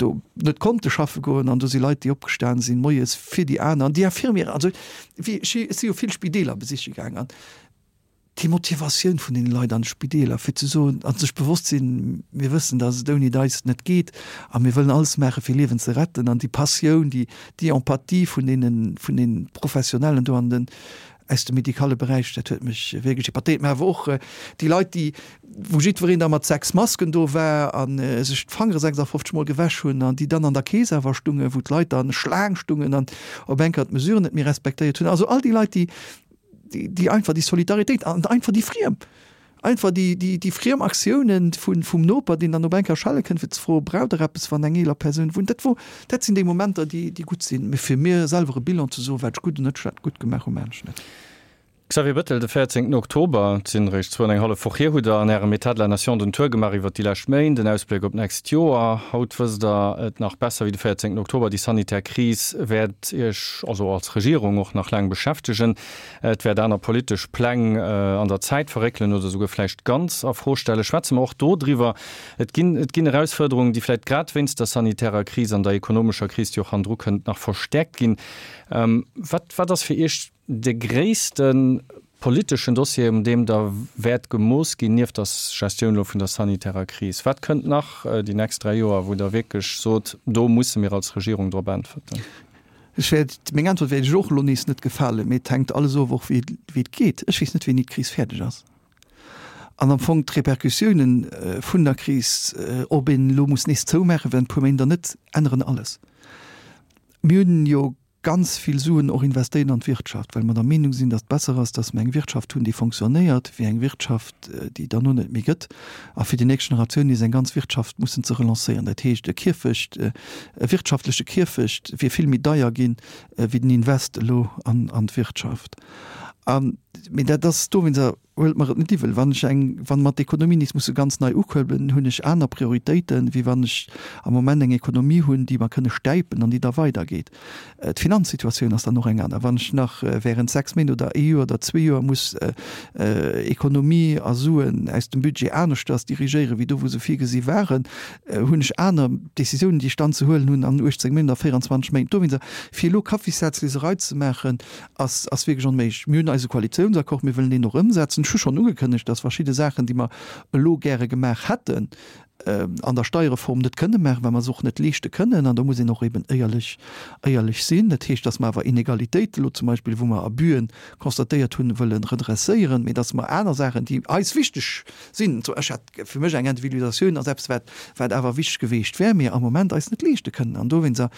do net konnte schaffe goen, an do si Leit, déi opgestan sinn moies fir déi aner, an déi Infirmieren, also wéi ech si jo vill Spideeler besiche gaang, an déi Motivatioun vun deene Leit an de Spideeler, fir ze soen a sech bewosst sinn, mir wëssen, datt et ouni eis net geet a mir wëllen alles maache fir Liewen ze retten, an déi Passioun, déi déi Empathie vun deene vun deene Professionellen do an den aus dem medikale Beräich, dat huet mech wierklech épatéiert. Mä awer och déi Leit, déi, wou jiddwereen da mat 6 Masken do war a sech d'Fangere 56 Mol gewäsch hunn an déi dann an der Kees awer stungen, wou d'Leit dann Schlaang stungen an op eng Kéier d'Mesuren net méi respektéiert hunn. Also all déi Leit, déi, déi einfach déi Solidaritéit an einfach déi Friem, Einfach déi, déi, déi friem Aktiounen vun, vum Noper, deen dann op eng Kéier schelle kënnt, fir ze froen, Braucht Der eppes, wann eng eeler Persoun wunnt? Dat wor, dat sinn déi Momenter, déi, déi gutt sinn. Mee fir mir selwer e Bilan ze soen, wat ech gutt an net schlecht gutt gemaach hunn, maachen ech net. Xavier Bettel, De 14 Oktober, et sinn eréischt zwou an eng hallef Woch hier, hutt Der an Ärem État de la Nation den Tour gemaach iwwert déi lescht Méint, en Ausbléck op d'nächst Joer. Haut wësst Der et nach besser wéi de 14 Oktober, déi sanitär Kris wäert Iech, also als Regierung, och nach laang beschäftegen. Et wäert aner politesch Pläng an der Zäit verréckelen oder souguer vläicht ganz a Fro stellen. Schwätze mer och do driwwer. Et ginn, et ginn Erausfuerderungen, déi vläicht grad wéinst der sanitärer Kris an der ekonomescher Kris, déi och hannendru kënnt, nach verstäerkt ginn. Wat, wat ass fir Iech de gréisste politeschen Dossier, un deem Der wäert gemooss ginn, nieft der Gestioun elo vun der sanitärer Kris? Wat kënnt nach déi nächst 3 Joer, wou Der wierklech sot, do musse mir als Regierung drop äntwerten? Ech wäert, meng Äntwert wäert Iech och elo nees net gefalen, mee et hänkt alles of och wéi et geet. Ech weess net wéini d'Kris fäerdeg ass an am Fong d'Repercussiounen vun der Kris, ob een elo muss nees zoumaache während e puer Méint oder net, änneren alles. Mir hunn jo ganz vill Suen och investéiert an d'Wirtschaft, well mer der Meenung sinn, datt et besser ass, datt mer eng Wirtschaft hunn, déi fonctionnéiert, wéi eng Wirtschaft, déi et derno net méi gëtt a fir déi nächst Generatioun nees eng ganz Wirtschaft mussen ze relancéieren. Dat heescht, e Kierfecht, E wirtschaftleche Kierfecht wier vill méi deier ginn, wéi den Invest elo an d'Wirtschaft. Mee dat ass dowéinster, huelt mer et net iwwel, wann ech eng, wann mer d'Ekonomie nees musse ganz nei ukuerbelen, hunn ech aner Prioritéiten, wéi wann ech am Moment eng Ekonomie hunn, déi mer kënne stäipen an déi da weidergeet. D'Finanzsituatioun ass dann och eng aner. Wann ech nach während 6 Méint oder ee Joer oder zwee Joer muss Ekonomie a Suen aus dem Budget aneschters dirigéieren, wéi do wou se virgesi waren, hunn ech aner Décisiounen, déi ech dann ze huelen hunn an 18 Méint a 24 Méint. Dowéinster, fir elo Kaffissatzleserei ze maachen, ass ass wierklech onméiglech. Mir hunn eise Koalitiounsaccord, mir wëllen deen och ëmsetzen. Ech hu schonn ugekënnegt, dass verschidde Saachen, déi mer elo gäre gemaach hätten. an der Steierreform net kënne maachen, well mer se och net leeschte kënnen. An do muss een och eben éierlech, éierlech sinn. Dat heescht, dass mer awer Inegalitéiten elo zum Beispill, wou mer Abüen constatéiert hunn, wëlle redresséieren, mee dass mer aner Saachen, déi eis wichteg sinn, ech hat fir mech eng Individualisatioun ass eppes, wat, wat awer wichteg geweecht wär, mir am Moment eis net leeschte kënnen. An dowéinster,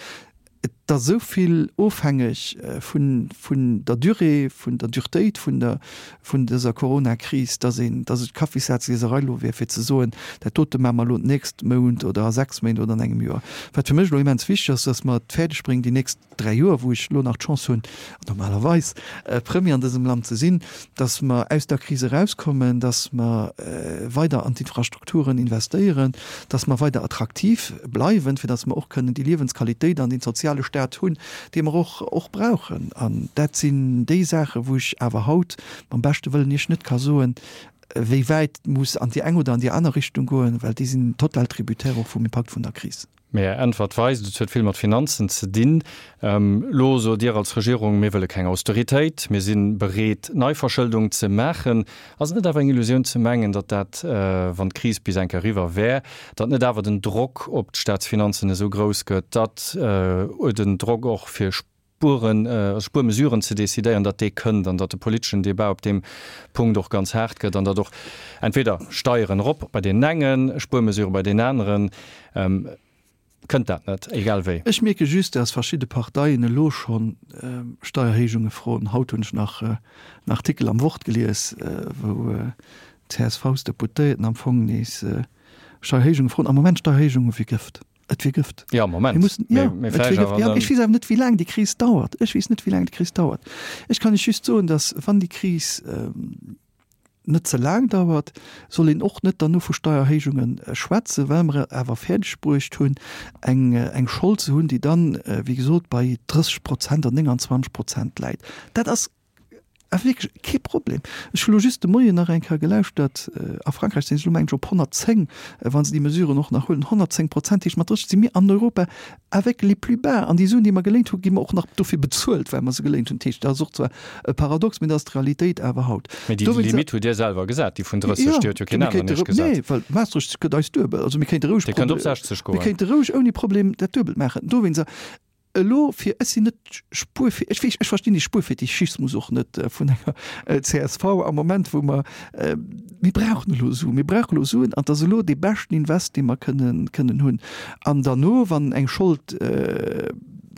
et ass esou vill ofhängeg vun, vun der Durée, vun der Duretéit vun der, vun dëser Coronakris, dass een, dass et Kaffissazlieserei elo wär, fir ze soen, dat dote maache mer elo d'nächst Mount oder a 6 Méint oder an engem Joer. Wat fir mech elo immens wichteg ass, dass mer et fäerdeg bréngen, déi nächst 3 Joer, wou ech elo nach d'Chance hunn, normalerweis Premier an dësem Land ze sinn, dass mer aus der Kris erauskommen, dass mer weider an d'Infrastrukturen investéieren, dass mer weider attraktiv bleiwen, fir dass mer och kënnen déi Liewensqualitéit an dee soziale Staat hunn, dee mer och och brauchen. An dat sinn déi Saachen, wou ech awer haut mam beschte Wëllen Iech net ka soen, wéi wäit et muss an déi eng oder an déi aner Richtung goen, well déi sinn total tributaire och vum Impakt vun der Kris. Mee Är Äntwert weist, et huet vill mat Finanzen ze dinn. Elo sot Dir als Regierung, mir wëlle keng Austeritéit, mir si bereet Neiverschëldung ze maachen. Ass et net awer eng Illusioun ze mengen, datt dat, wann d'Kris bis eng Kéier eriwwer wär, datt net awer den Drock op d'Staatsfinanzen esou grouss gëtt, datt den Drock och fir Spueren, also Spuermesuren ze decidéieren, datt dee kënnt an datt de politeschen Debat op deem Punkt och ganz haart gëtt an datt och entweder Steieren erop bei deenen engen, Spuermesurë bei deenen aneren, kënnt dat net, egal wéi. Ech mierke just, datt verschidde Parteien elo scho Steierhéijunge froen. Haut hunn ech nach en Artikel am Wort gelies, wou d'CSV-Deputéierten am Fong nees Steierhéijunge froen. Am Moment Steierhéijunge wéi Gëft. Et wier Gëft. Jo, am Moment. Mir mussen, ja, et wier Gëft. Ja, ech weess awer net, wéi laang déi Kris dauert. Ech weess net, wéi laang déi Kris dauert. Ech kann lech just soen, datt, wann déi Kris net ze laang dauert, soll een och net derno vu Steierhéijunge schwätzen, well mer et awer fäerdeg bruecht hunn, eng, eng Schold ze hunn, déi dann, wéi gesot, bei 30 Prozent an 29 Prozent läit. Dat ass Awer wierklech kee Problem. Ech hu lo just de Moien nach eng Kéier gelauschtert, a Frankräich sinn se elo, mengen ech, op 110, wa se déi Mesuren och nach huelen. 110 Prozent heescht, mat 30 si mir an Europa avec les plus bas. An déi Suen, déi mer geléint hunn, gi mer och nach dofir bezuelt, well mer se geléint hunn. Dat heescht, dat ass och zwar e Paradox, mee dat ass d'Realitéit awer haut. Mee déi Limitt hutt Dir selwer gesat, déi vun 30, déi huet jo keen aneren Iech gesat. Nee, well Maastricht gëtt eis duebel. Also mir kéinte roueg. Dir kënnt op 60 goen. Mir kéinte roueg ouni Problem dat Duebelt maachen. Dowéinst, Elo fir, ech sinn net Spuerfe, ech weess, ech verstinn dee Spuerfetischismus och net vun enger csv am Moment, wou mer, mir brauchen elo Suen, mir brauchen elo Suen an et ass elo dee beschten Invest, dee mer kënnen, kënnen hunn. An derno, wann eng Schold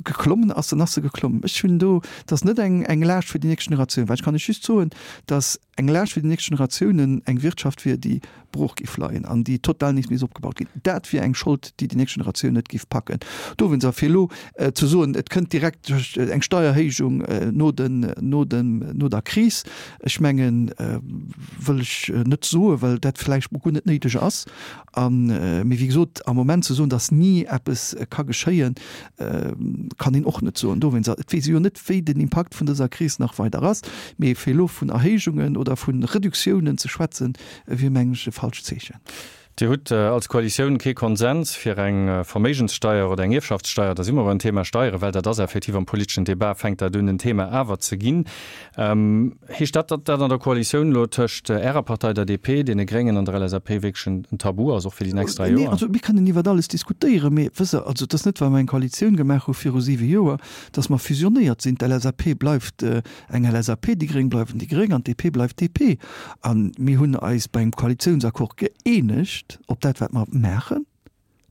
geklommen ass, dann ass se geklommen. Ech hunn do, et ass net eng, eng Laascht fir déi nächst Generatioun, well ech kann lech just soen, datt eng Laascht fir déi nächst Generatiounen eng Wirtschaft wier, déi brooch géif leien an déi total nees misst opgebaut ginn. Dat wier eng Schold, déi déi nächst Generatioun net géif packen. Dowéinst, a fir elo ze soen, et kënnt direkt eng Steierhéijung no den, no dem, no der Kris, ech mengen, wëll ech net soen, well dat vläicht guer net néideg ass. A mee wéi gesot, am Moment ze soen, datt ni eppes ka geschéien, kann een och net soen. Dowéinst, et weess ee jo net, wéi den Impakt vun dëser Kris nach weider ass. Mee fir elo vun Erhéijungen oder vu Reduktiounen ze schwätzen, wier, mengen ech, e falscht Zeechen. Dir hutt als Koalitioun kee Konsens fir eng Verméigenssteier oder eng Ierfschaftssteier. Da si mer beim Thema Steieren, well dat ass effektiv am politeschen Debat fänkt dat un en Thema awer ze ginn. Heescht dat, datt dat an der Koalitioun elo tëscht Ärer Partei, der DP, deene Gréngen an der LSAP wierklech en Tabu ass, och fir déi nächst 3 Joer? Nee, also mir kënnen iwwert alles diskutéieren, mee wësst Der, also et ass net, well mer eng Koalitioun gemaach hu viru siwe Joer, datt mer fusionéiert sinn. D'LSAP bleift eng LSAP, déi Gréng bleiwen déi Gréng an d'DP bleift DP. A mir hunn eis bei engem Koalitiounsaccord gëeenegt op dat, wat mer maachen,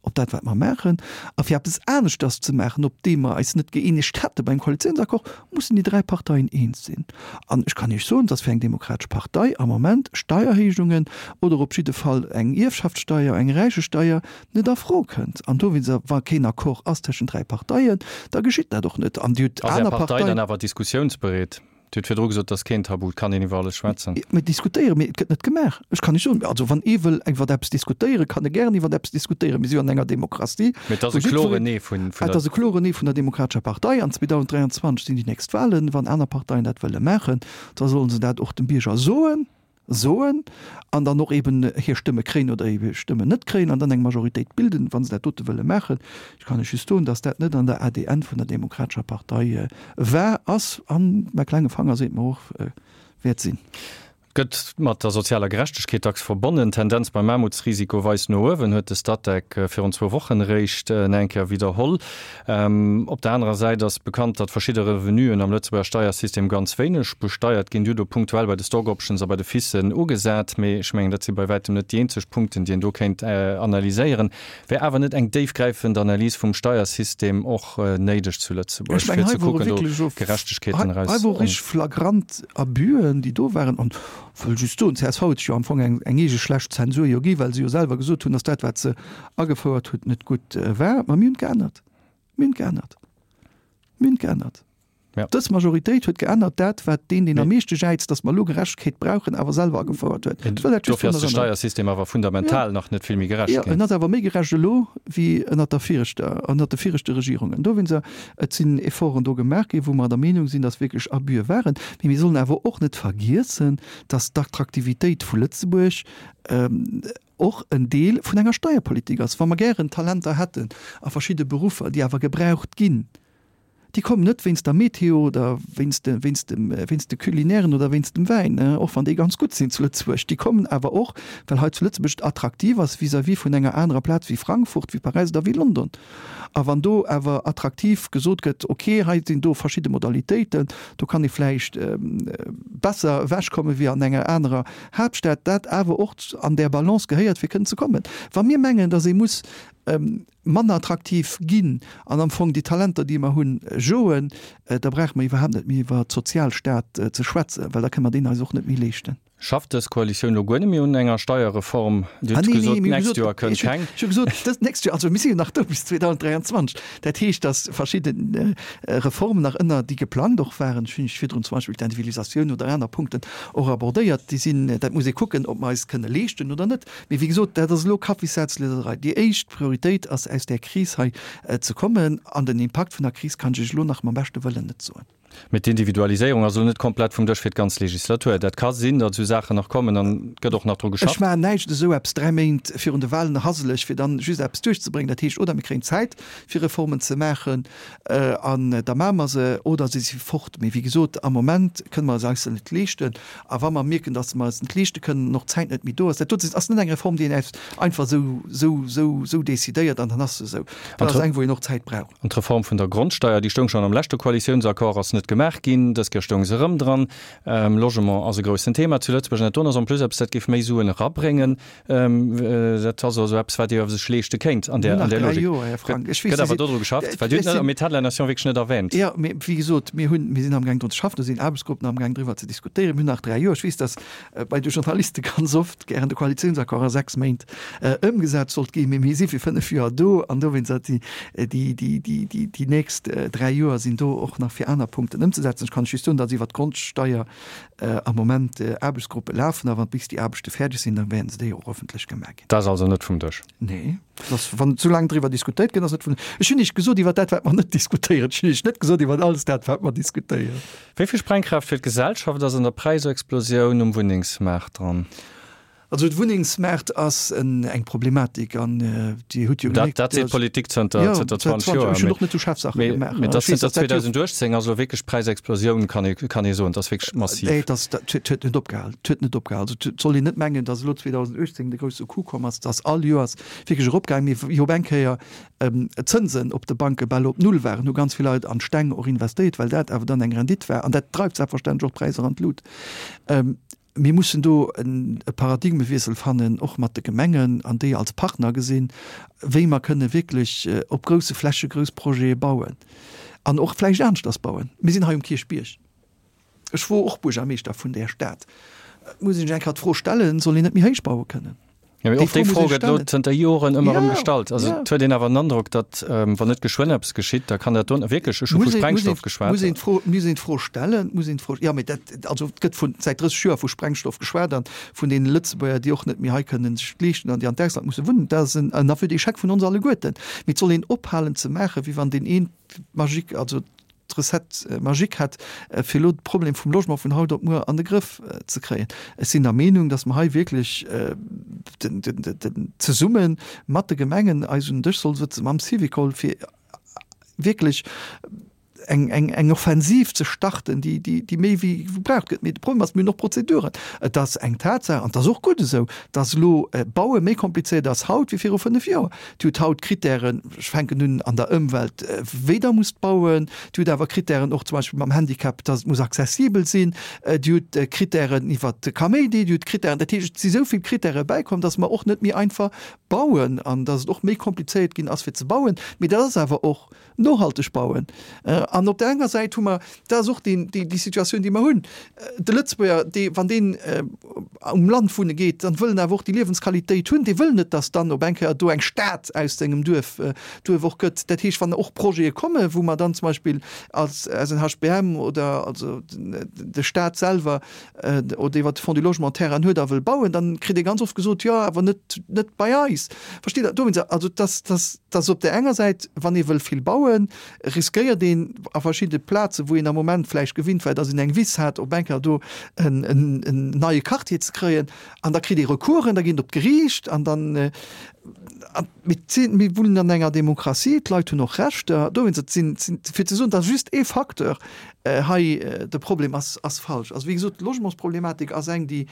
op dat, wat mer maachen. A fir eppes aneschters ze maachen, op deem mer eis net gëeenegt hätte beim Koalitiounsaccord, mussen déi 3 Parteien eens sinn. An ech kann Iech soen, dass fir eng demokratesch Partei am Moment Steierhéijungen oder op jidde Fall eng Ierfschaftssteier, eng Räichesteier net a Fro kënnt. An dowéinst, wa keen Accord ass tëschent 3 Parteien, da geschitt dat och net. An Dir hutt Ass Är aner Partei dann awer diskussiounsbereet? Dir hutt virdru gesot, et ass keen Tabu, et kann een iwwer alles schwätzen. Mir diskutéieren, mee et gëtt net gemaach. Ech kann lech soen, also wann ee wëll iwwer eppes diskutéieren, kann e gären iwwer eppes diskutéieren. Mir si jo an enger Demokratie, Mee et ass e kloren Nee vun der. Et ass e kloren Nee vun der Demokratescher Partei. An 2023 sinn déi nächst Wahlen. Wann aner Parteien dat wëlle maachen, da sollen se dat och dem Bierger soen. Soen an dann och eben hir Stëmme kréien oder hir Stëmmen net kréien an dann eng Majoritéit bilden, wa se dat dote wëlle maachen. Ech kann lech just soen, datt dat net an der ADN vun der Demokratescher Partei war, ass an, mäi klenge Fanger seet mer och, wäert sinn. Et Gëtt mat der sozialer Gerechtegkeet dacks verbonnen. D'Tendenz beim Aarmutsrisiko weist no uewen, huet de Statec virun zwou Wochen eréischt nach eng Kéier widderholl. Op der anerer Säit ass bekannt, datt verschidde Revenuen am Lëtzebuerger Steiersystem ganz wéineg besteiert ginn. Dir hutt do punktuell bei de Stock Options a bei de FICen ugesat, mee ech mengen, dat si bei wäitem net déi eenzeg Punkten, déi een do kéint analyséieren. Wär awer net eng déifgräifend Analys vum Steiersystem och néideg zu Lëtzebuerg, fir ze kucken, do Gerechtegkeeten eraus. Hei wor richteg flagrant Abüen, déi do waren. An wëll just soen, csv huet sech jo am Fong eng eege schlecht Zensur jo gi, well se jo selwer gesot hunn, datt dat, wat se agefouert hutt, net gutt war. Ma mir hunn geännert. Mir hunn geännert. Mir hunn geännert. Ja. Dës Majoritéit huet geännert dat, wat deen, deen am meeschte jäizt, datt mer elo Gerechtegkeet brauchen, awer selwer agefouert huet. Ech wëll dat just Dofir ass de Steiersystem awer fundamental ja. nach net vill méi gerecht ginn. Ja, en ass awer méi gerecht elo wéi ënnert der viregter, ënnert de viregte Regierungen. Dowéinster, et sinn Efforten do gemaach ginn, wou mer der Meenung sinn, datt wierklech Abüe waren. Mee mir sollen awer och net vergiessen, datt d'Attraktivitéit vu Lëtzebuerg och en Deel vun enger Steierpolitik ass. Wa mer gären Talenter hätten a verschidde Beruffer, déi awer gebraucht ginn, déi kommen net wéinst der Meteo oder wéinst de, wéinst dem, wéinst de Culinairen oder wéinst dem Wäin, och wann déi ganz gutt sinn zu Lëtzebuerg. Déi kommen awer och, well hei zu Lëtzebuerg et attraktiv ass vis-à-vis vun enger anerer Plaz wéi Frankfurt, wéi Paräis oder wéi London. A wann do awer attraktiv gesot gëtt, ok, hei sinn do verschidde Modalitéiten, do kann ee vläicht besser ewechkomme wéi an enger anerer Haaptstad, dat awer och an där Balance gehéiert, fir kënnen ze kommen. Wa mir mengen, datt ee muss manner attraktiv ginn an am Fong déi Talenter, déi mer hunn, joen, da brauche mer iwwerhaapt net méi iwwer Sozialstaat ze schwätzen, well da kënne mer deen eis och net méi leeschten. Schafft dës Koalitioun elo guer net méi un enger Steierreform? Dir hutt gesot, d'nächst Joer kënnt keng. Ech hu gesot, dëst nächst Joer, also mir si jo nach do bis 2023. Dat heescht, datt verschidde Reformen nach ënner, déi geplangt och waren, ech hunn iech virdrun zum Beispill d'Individualisatioun oder aner Punkten och abordéiert, déi sinn, dat muss ee kucken, ob mer eis kënne leeschten oder net. Mee wéi gesot, dat ass elo Kaffissatzlieserei. Déi éischt Prioritéit ass, aus där Kris hei ze kommen. An den Impakt vun der Kris kann ech iech elo nach mam beschte Wëllen net soen. Mee d'Individualiséierung ass elo net komplett vum Dësch fir d'ganz Legislatur. Dat ka sinn, datt esou Saachen nach kommen an et gëtt och nach dru geschafft. Ech maachen näischt esou eppes 3 Méint virun de Wahlen haseleg, fir dann just eppes duerchzebréngen. Dat heescht, oder mir kréien Zäit fir Reformen ze maachen an da maache mer se, oder se si fort. Mee wéi gesot, am Moment kënne mer se eis se net leeschten. A wa mer mierken, datt mer eis net leeschte kënnen an och d'Zäit net méi do ass, dat do ass net eng Reform, déi een einfach esou, esou, esou, esou decidéiert an dann ass se esou. Dat ass eng, wou een och Zäit brauch. An d'Reform vun der Grondsteier, déi stoung schonn am leschte Koalitiounsaccord, ass net gemaach ginn. Dës Kéier stoung se erëm dran. Logement ass e groussen Thema zu Lëtzebuerg. An dat doen ass en plus eppes, dat géif méi Suen erabréngen. Dat ass also eppes, wat ee sech leeschte kéint an där Logik. Gëtt awer dodru geschafft? Well Dir hutt et am État de la Nation wierklech net erwähnt. Jo, mee wéi gesot, mir hunn, mir sinn amgaang drun ze schaffen. Do sinn Aarbechtsgruppen amgaang driwwer ze diskutéieren. Mir hunn nach 3 Joer. Ech weess, datt bei de Journaliste ganz oft gären de Koalitiounsaccord a 6 Méint ëmgesat sollt ginn, mee mir si fir 5 Joer do an dowéinst déi, déi, déi, déi, déi nächst 3 Joer sinn do och nach fir aner Punkten ëmzesetzen. Ech kann lech just soen, datt iwwert d'Grondsteier am Moment Aarbechtsgruppe lafen a wann bis déi Aarbechte fäerdeg sinn, da wäerten se déi och ëffentlech gemaach ginn. Dat ass also net vum Dësch? Nee, dat ass, wann esou laang driwwer diskutéiert gëtt, ass net vum. Ech hunn Iech gesot iwwer dat, wat mer net diskutéieren. Ech hunn Iech net gesot iwwer alles dat, wat mer diskutéieren. Wéi vill Sprengkraaft fir d'Gesellschaft ass an der Präisexplosioun um Wunnengsmaart dran? Also de Wunnengsmaart ass eng Problematik an Dir hutt jo gemierkt. Dat seet d'Politik zënter 20 Joer. Ech hunn och net esou schaarf Saache gemaach. Mee dat zënter 2018 ass elo wierklech d'Präisexplosioun, kann ee soen. Dat ass wierklech massiv. Et ass, dat huet net opgehal. Et huet net opgehal. Also et soll een net mengen, datt elo 2018 de grousse Coup komm ass. Et ass all Joers wierklech eropgaangen. Mee wéi op eng Kéier d'Zënsen op de Banke bal op Null waren, hu ganz vill Leit an d'Steng och investéiert, well dat awer dann eng Rendite war. An dat dreift selbstverständlech och d'Präisser an d'Lut. Mir mussen do e Paradigmewiessel fannen, och mat de Gemengen, an déi als Partner gesinn, wéi mer kënne wierklech op grousse Fläche grouss Projete bauen an och vläicht aneschters bauen. Mir sinn hei um Kierchbierg. Ech wor och Buergermeeschter vun där Stad. Et muss een sech eng Kéier d'Fro stellen, Soll een net méi héich baue kënnen? Jo, mee och déi Fro gëtt elo zënter Joren ëmmer erëm gestallt. Also et huet een awer den Androck, datt, wann net geschwënn eppes geschitt, da kann dat do wierklech, ech hu vu Sprengstoff geschwat. Muss een d'Fro, muss een d'Fro stellen, muss een d'Fro, jo, mee dat, also et gëtt vun säit 30 Joer vu Sprengstoff geschwat an vun deene Lëtzebuerger, déi och net méi hei kënnen sech et leeschten an déi an d'Ausland musse wunnen. Dat ass en aveu d'échec vun ons alleguerten. Mee et soll een ophalen ze maachen, wéi wann deen een d'Magique, also d'Recette magique hätt, fir elo de Problem vum Logement vun haut op muer an de Grëff ze kréien. Ech sinn der Meenung, datt mer hei wierklech zesumme mat de Gemengen eis un den Dësch solle sëtzen, mam Syvicol, fir wierklech. eng, eng, eng Offensiv ze starten, déi, déi, déi méi wéi gebraucht gëtt. Mee de Problem ass, mir hunn och Prozeduren. Et ass eng Tatsaach, an et ass och gutt esou, dass elo Baue méi komplizéiert ass haut wéi viru 5 Joer. Dir hutt haut Krittären, ech fänken un an der Ëmwelt, wéi Der musst bauen. Dir hutt awer Krittären och zum Beispill mam Handicap, dass et muss accessibel sinn. Dir hutt Krittären iwwert de Kaméidi. Dir hutt Krittären, dat heescht, et si sou vill Krittäre bäikomm, dass mer och net méi einfach bauen an dass et och méi komplizéiert ginn ass fir ze bauen. Mee dat ass awer och Nohalteg bauen. An op där enger Säit hu mer, dat ass och déi, déi Situatioun, déi mer hunn, de Lëtzebuerger, dee, wann deen um Land wunne geet, dann wëll en awer och déi Liewensqualitéit hunn. Dee wëll net, datt dann op eng Kéier do eng Stad aus sengem Duerf, Duerf och gëtt. Dat heescht, wann och Projete kommen, wou mer dann zum Beispill als SNHBM oder also de Stat selwer oder iwwert de Fonds du Logement Terrainen huet a wëll bauen, dann kritt ee ganz oft gesot, jo, awer net, net bei eis. Versteet Der? Dowéinst, also dass, dass, dass op där enger Säit, wann ee wëll vill bauen, riskéiert een a verschidde Plazen, wou een am Moment vläicht gewinnt war, dass een eng Wiss hat, op eng Kéier do en, en, en neie Quartier ze kréien. An da kritt ee Recoursen, da geet een op d'Geriicht an dann, an mir sinn, mir wunnen an enger Demokratie, d'Leit hunn och Rechter. Dowéinst, et sinn, sinn, fir ze soen, dass just ee Facteur hei de Problem ass, ass falsch. Also wéi gesot, d'Logementsproblematik ass eng, déi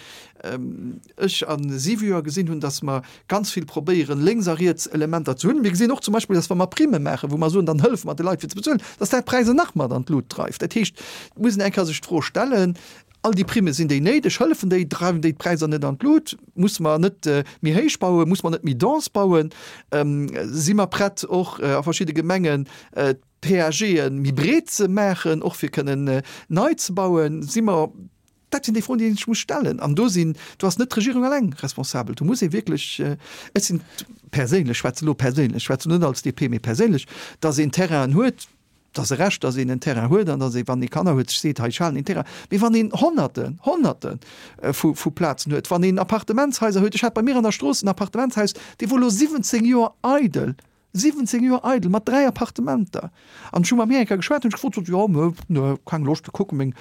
ech a siwe Joer gesinn hunn, dass mer ganz vill probéieren, lénks a riets Elementer ze hunn. Mir gesinn och zum Beispill, dass wa mer Primme maachen, wou mer soen, dann hëllefe mer de Leit fir ze bezuelen, dass dat d'Präisser nach mat an d'Lut dreift. Dat heescht, et muss een eng Kéier sech d'Fro stellen, All déi Primme, sinn déi néideg? Hëllefen déi? Dreiwen déi d'Präisser net an d'Lut? Musse mer net méi héich bauen? Musse mer net méi dense bauen? Si mer prett och a verschidde Gemengen d'PAGe méi breet ze maachen, och fir kënnen nei ze bauen? Si mer, dat sinn déi Froen, déi een sech muss stellen. An do sinn, do ass net d'Regierung eleng responsabel. Do muss ee wierklech, ech sinn perséinlech, schwätze elo perséinlech, schwätze net als DP, mee perséinlech, datt een Terrainen huet, Et ass e Recht, datt een en Terrain huet an datt ee, wann ee Kanner huet, sech seet, hei, ech halen een Terrain. Mee wann een Honnerten, Honnerte vu Plazen huet, wann een Appartementshaiser huet, ech hat bei mir an der Strooss en Appartementshaus, dee wor elo 17 Joer eidel, 17 Joer eidel, mat 3 Appartementer. An ech hu mam Här eng Kéier geschwat, hunn ech gefrot, sot, jo, mö, nö, keng Loscht, kucke meng,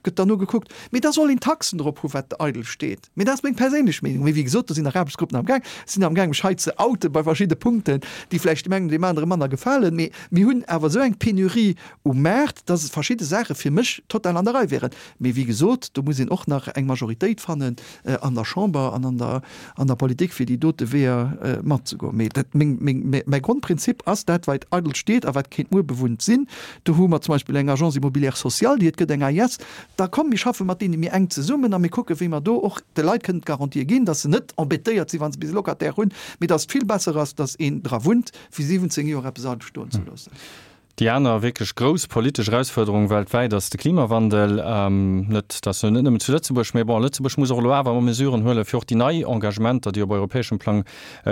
gëtt dann nogekuckt. Mee da soll een Taxen drop hu wat eidel steet. Mee dat ass meng perséinlech Meenung. Mee wéi gesot, do sinn nach Aarbechtsgruppen am Gaang. Ech sinn am Gaang, mech hei ze outen bei verschidde Punkten, déi vläicht deem engen oder deem anere manner gefalen. Mee mir hunn awer esou eng Penurie um Maart, dass et verschidde Saache fir mech total an der Rei wären. Mee wéi gesot, do muss een och nach eng Majoritéit fannen an der Chamber an an der an der Politik, fir déi dote Weeër matzegoen. Mee dat, meng, meng, mäi Grondprinzip ass, dat wat eidel steet a wat kéint muer bewunnt sinn, do hu mer zum Beispill eng Agence immobilière sociale, déi et gëtt, eng AIS, da komm mir schaffe mat deene méi enk zesummen a mir kucke wéi mer do och de Leit kënnen d'Garantië ginn, dass se net embêtéiert sinn, wa se bis e Locataire hunn, mee dass et vill besser ass, dass een dra wunnt, wéi 17 Joer eppes eidel stoen ze loossen. Déi aner wierklech grouss politesch Erausfuerderung weltwäit ass de Klimawandel. Net, dass net nëmmen zu Lëtzebuerg, mee bon, Lëtzebuerg muss och elo awer Mesuren huelen, fir och déi nei Engagementer, déi op europäeschem Plang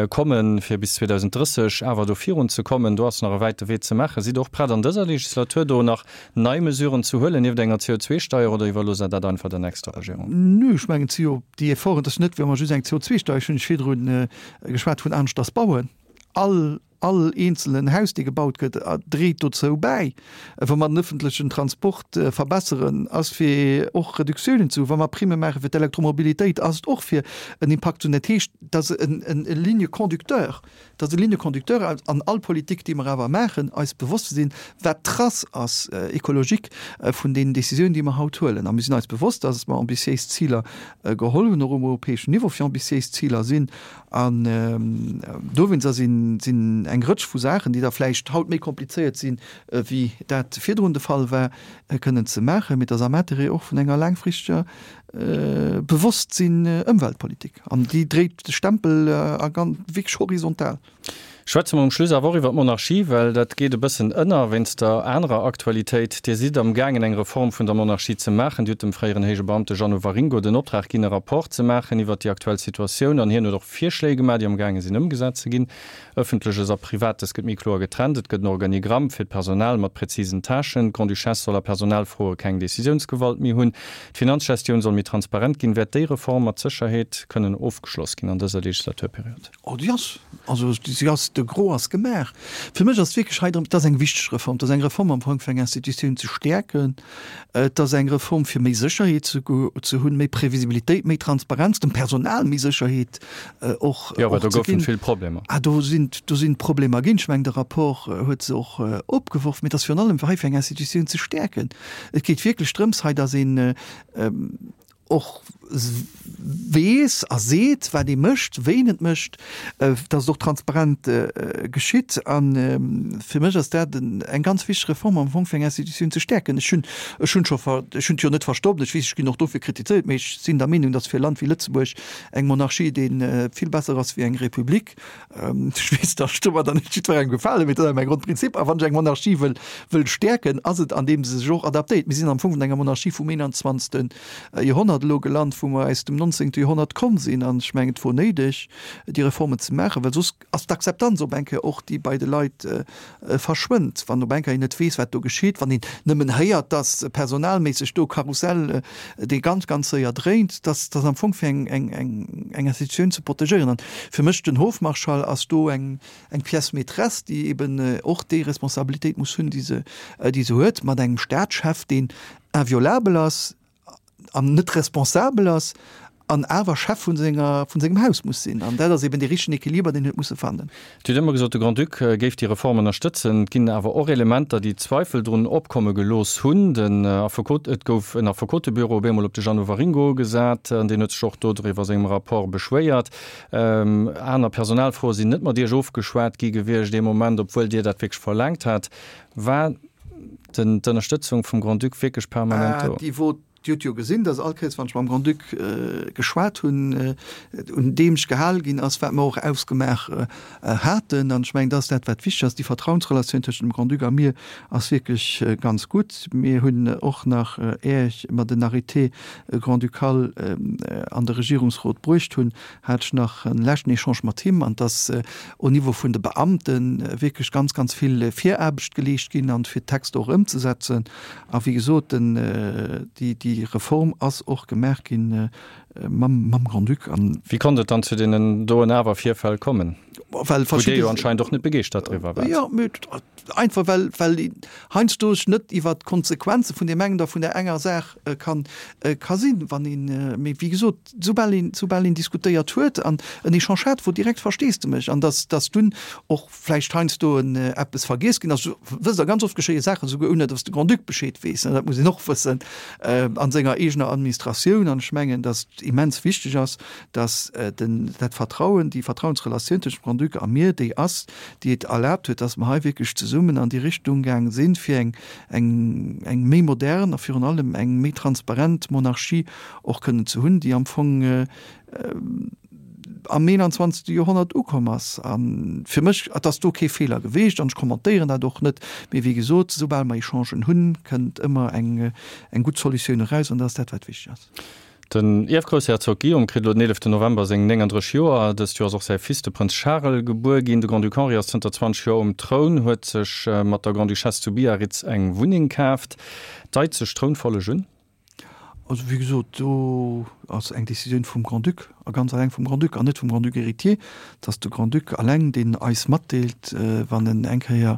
kommen, fir bis 2030 awer do virun ze kommen. Do ass nach e wäite Wee ze maachen. Sidd Der och prett an dëser Legislatur do nach nei Mesuren ze huelen, nieft enger CO2-Steier, oder iwwerloosst Der dat einfach der nächster Regierung? Nö, ech mengen, et si jo déi Efforten, et ass net, wéi wa mer just eng CO2-Steier, ech hunn lech virdru geschwat vun aneschters bauen, all All eenzelen Haus, dee gebaut gëtt, dréit dozou bäi. Wa mer den ëffentlechen Transport verbesseren, ass fir och Reduktiounen ze hunn. Wa mer Primme maache fir d'Elektromobilitéit, ass et och fir en Impakt ze hunn. Dat heescht, et ass en Ligne conducteur, et ass e Ligne conducteur an all Politik, déi mer awer maachen, eis bewosst ze sinn, wat d'Trace ass écologique vun deenen Décisiounen, déi mer haut huelen. A mir sinn eis bewosst, dass mer ambitiéis Ziler geholl hunn, och um europäeschen Niveau fir ambitiéis Ziler sinn. An dowéinster sinn eng Rëtsch vu Saachen, déi da vläicht haut méi komplizéiert sinn, wéi dat virdrun de Fall war, kënnen ze maachen. Mee et ass am Intérêt och vun enger laangfristeger Bewosstsinn Ëmweltpolitik. An déi dréit de Stempel a ganz wierklech horizontal. Schwätze mer um Schluss awer och iwwer d'Monarchie, well dat geet e bëssen ënner wéinst der anerer Aktualitéit. Dir sidd am gaangen eng Reform vun der Monarchie ze maachen. Dir hutt dem fréieren héije Beamte Jeannot Waringo den Optrag ginn e Rapport ze maachen iwwer déi aktuell Situatioun an hien huet och Virschléi gemaach, déi am gaange sinn ëmgesat ze ginn. Ëffentleches a Privates gëtt méi kloer getrennt, et gëtt en Organigramm fir d'Personal mat präzisen Tâchen, d'Grande-Duchesse soll a Personalfroe keng Decisiounsgewalt méi hunn, d'Finanzgestioun soll méi transparent ginn. Wäert déi Reform mat Sécherheet kënnen ofgeschloss ginn an dëser Legislaturperiod? Oh, déi ass, also si ass. De Gros ass gemaach. Fir mech ass et wierklech hei drëm, et ass eng wichteg Reform, et ass eng Reform am Fong fir eng Institutioun ze stäerken, et ass eng Reform fir méi Sécherheet ze ze hunn, méi Previsibilitéit, méi Transparenz, dem Personal méi Sécherheet och Jo, well do goufen vill Problemer. Ah, do sinn, do sinn Problemer ginn. Ech mengen, de Rapport huet se och opgeworf. Mee et ass virun allem fir hei fir eng Institutioun ze stäerken. Et geet wierklech drëms hei, datt een och weess a seet, wat ee mécht, wéi een et mécht, datt et och transparent geschitt. A fir mech ass dat eng ganz wichteg Reform am Fong, fir eng Institutioun ze stäerken. Ech hunn, ech hunn scho, ech hunn et jo net verstoppt, ech weess, ech ginn och dofir kritizéiert, mee ech sinn der Meenung, datt fir e Land wéi Lëtzebuerg eng Monarchie dee vill besser ass wéi eng Republik. Ech weess, datt ech domadder net jiddwerengem gefalen, mee dat ass mäi Grondprinzip. A wann ech eng Monarchie wëll, wëll stäerken, ass et andeem se sech och adaptéiert. Mir sinn am Fong vun enger Monarchie vum 21. Joerhonnert elo gelant, wou mer aus dem 19. Joerhonnert komm sinn. An ech mengen, et wor néideg, déi Reformen ze maachen, well soss ass d'Akzeptanz op eng Kéier och, déi bei de Leit verschwënnt, wann op eng Kéier een net weess, wat do geschitt, wann een nëmmen héiert, dass personalméisseg do e Karussell, dee ganz, ganz séier dréint, dass dass am Fong fir eng, eng, eng, eng Institutioun ze protegéieren. An fir mech den Hofmarschall ass do eng, eng Pièce maîtresse, déi eben och déi Responsabilitéit muss hunn, déi se, déi se huet, mat engem Staatschef, deen inviolabel ass, an net responsabel ass an awer Chef vun senger, vun sengem Haus muss sinn. An dat ass eben dee richtegen Equiliber, deen huet musse fannen. Dir hutt ëmmer gesot, de Grand-Duc géif déi Reform ënnerstëtzen. Et ginn awer och Elementer, déi Zweifel drun opkomme gelooss hunn. Den Affekot, et gouf en Affekotebüro op eemol op de Jeannot Waringo gesat an deen huet sech och do driwwer a sengem Rapport beschwéiert. Aner Personalfroe sinn net mat Iech ofgeschwat gi gewiescht ee Moment, obwuel Dir dat wierklech verlaangt hat. War den d'Ënnerstëtzung vum Grand-Duc wierklech permanent do? Déi wor, Dir hutt jo gesinn, datt all Kéiers, wann ech mam Grand-Duc geschwat hunn, un deem ech gehal ginn ass, wat mer och ausgemaach haten. An ech mengen, dat ass dat, wat wichteg ass. Déi Vertrauensrelatioun tëschent dem Grand-Duc a mir ass wierklech ganz gutt. Mir hunn och nach, är mer den Arrêté grand-ducal an de Regierungsrot bruecht hunn, hat ech nach en leschten Echange mat him, an dass au Niveau vun de Beamte wierklech ganz, ganz vill Viraarbecht geleescht ginn an fir d'Texter och ëmzesetzen. A wéi gesot, den, déi, déi Reform ass och gemaach gi mam, mam Grand-Duc. An. Wéi konnt et dann zu deenen doen awer Virfäll kommen, Well wou Dir jo anscheinend och net begeeschtert driwwer waart? Jo, mee einfach well, well een heiansdo sech net iwwert d'Konsequenze vun deem engen oder vun där enger Saach kann, ka sinn, wann een, mee wéi gesot, soubal een, soubal een diskutéiert huet an en Echange hat, wor direkt Versteesdemech an dass, dass dunn och vläicht heiansdo en eppes vergiess ginn ass. Wësst Der, ganz oft geschéie Saachen esouguer ouni dass de Grand-Duc Bescheed weess, dat muss een och wëssen, a senger eegener Administratioun. An ech mengen, dass et immens wichteg ass, dass den, dat Vertrauen, déi Vertrauensrelatioun tëschent dem Grand-Duc a mir, déi ass, déi et erlaabt huet, dass mer hei wierklech zesummen an déi Richtung gaang sinn, fir eng, eng, eng méi modern a virun allem eng méi transparent Monarchie och kënnen ze hunn, déi am Fong am 21. Joerhonnert ukomm ass. A fir mech, et ass do kee Feeler geweecht an ech kommentéieren dat och net, mee wéi gesot, soubal mer Echangen hunn, kënnt ëmmer eng eng gutt Solutioun eraus an dat ass dat, wat wichteg ass. Den Ierfgroussherzog Guillaume kritt elo den 11 November seng 39 Joer. Dëst Joer ass och säi Fils, de Prënz Charel, gebuer ginn. De Grand-Duc Henri ass zënter 20 Joer um Troun, huet sech mat der Grande-Duchesse zu Biarritz eng Wunneng kaaft. Deit sech d'Trounfolleg un? Also, wéi gesot, do ass eng Décisioun vum Grand-Duc a ganz alleng vum Grand-Duc an net vum Grand-Duc héritier. Et ass de Grand-Duc alleng, deen eis matdeelt, wann en eng Kéier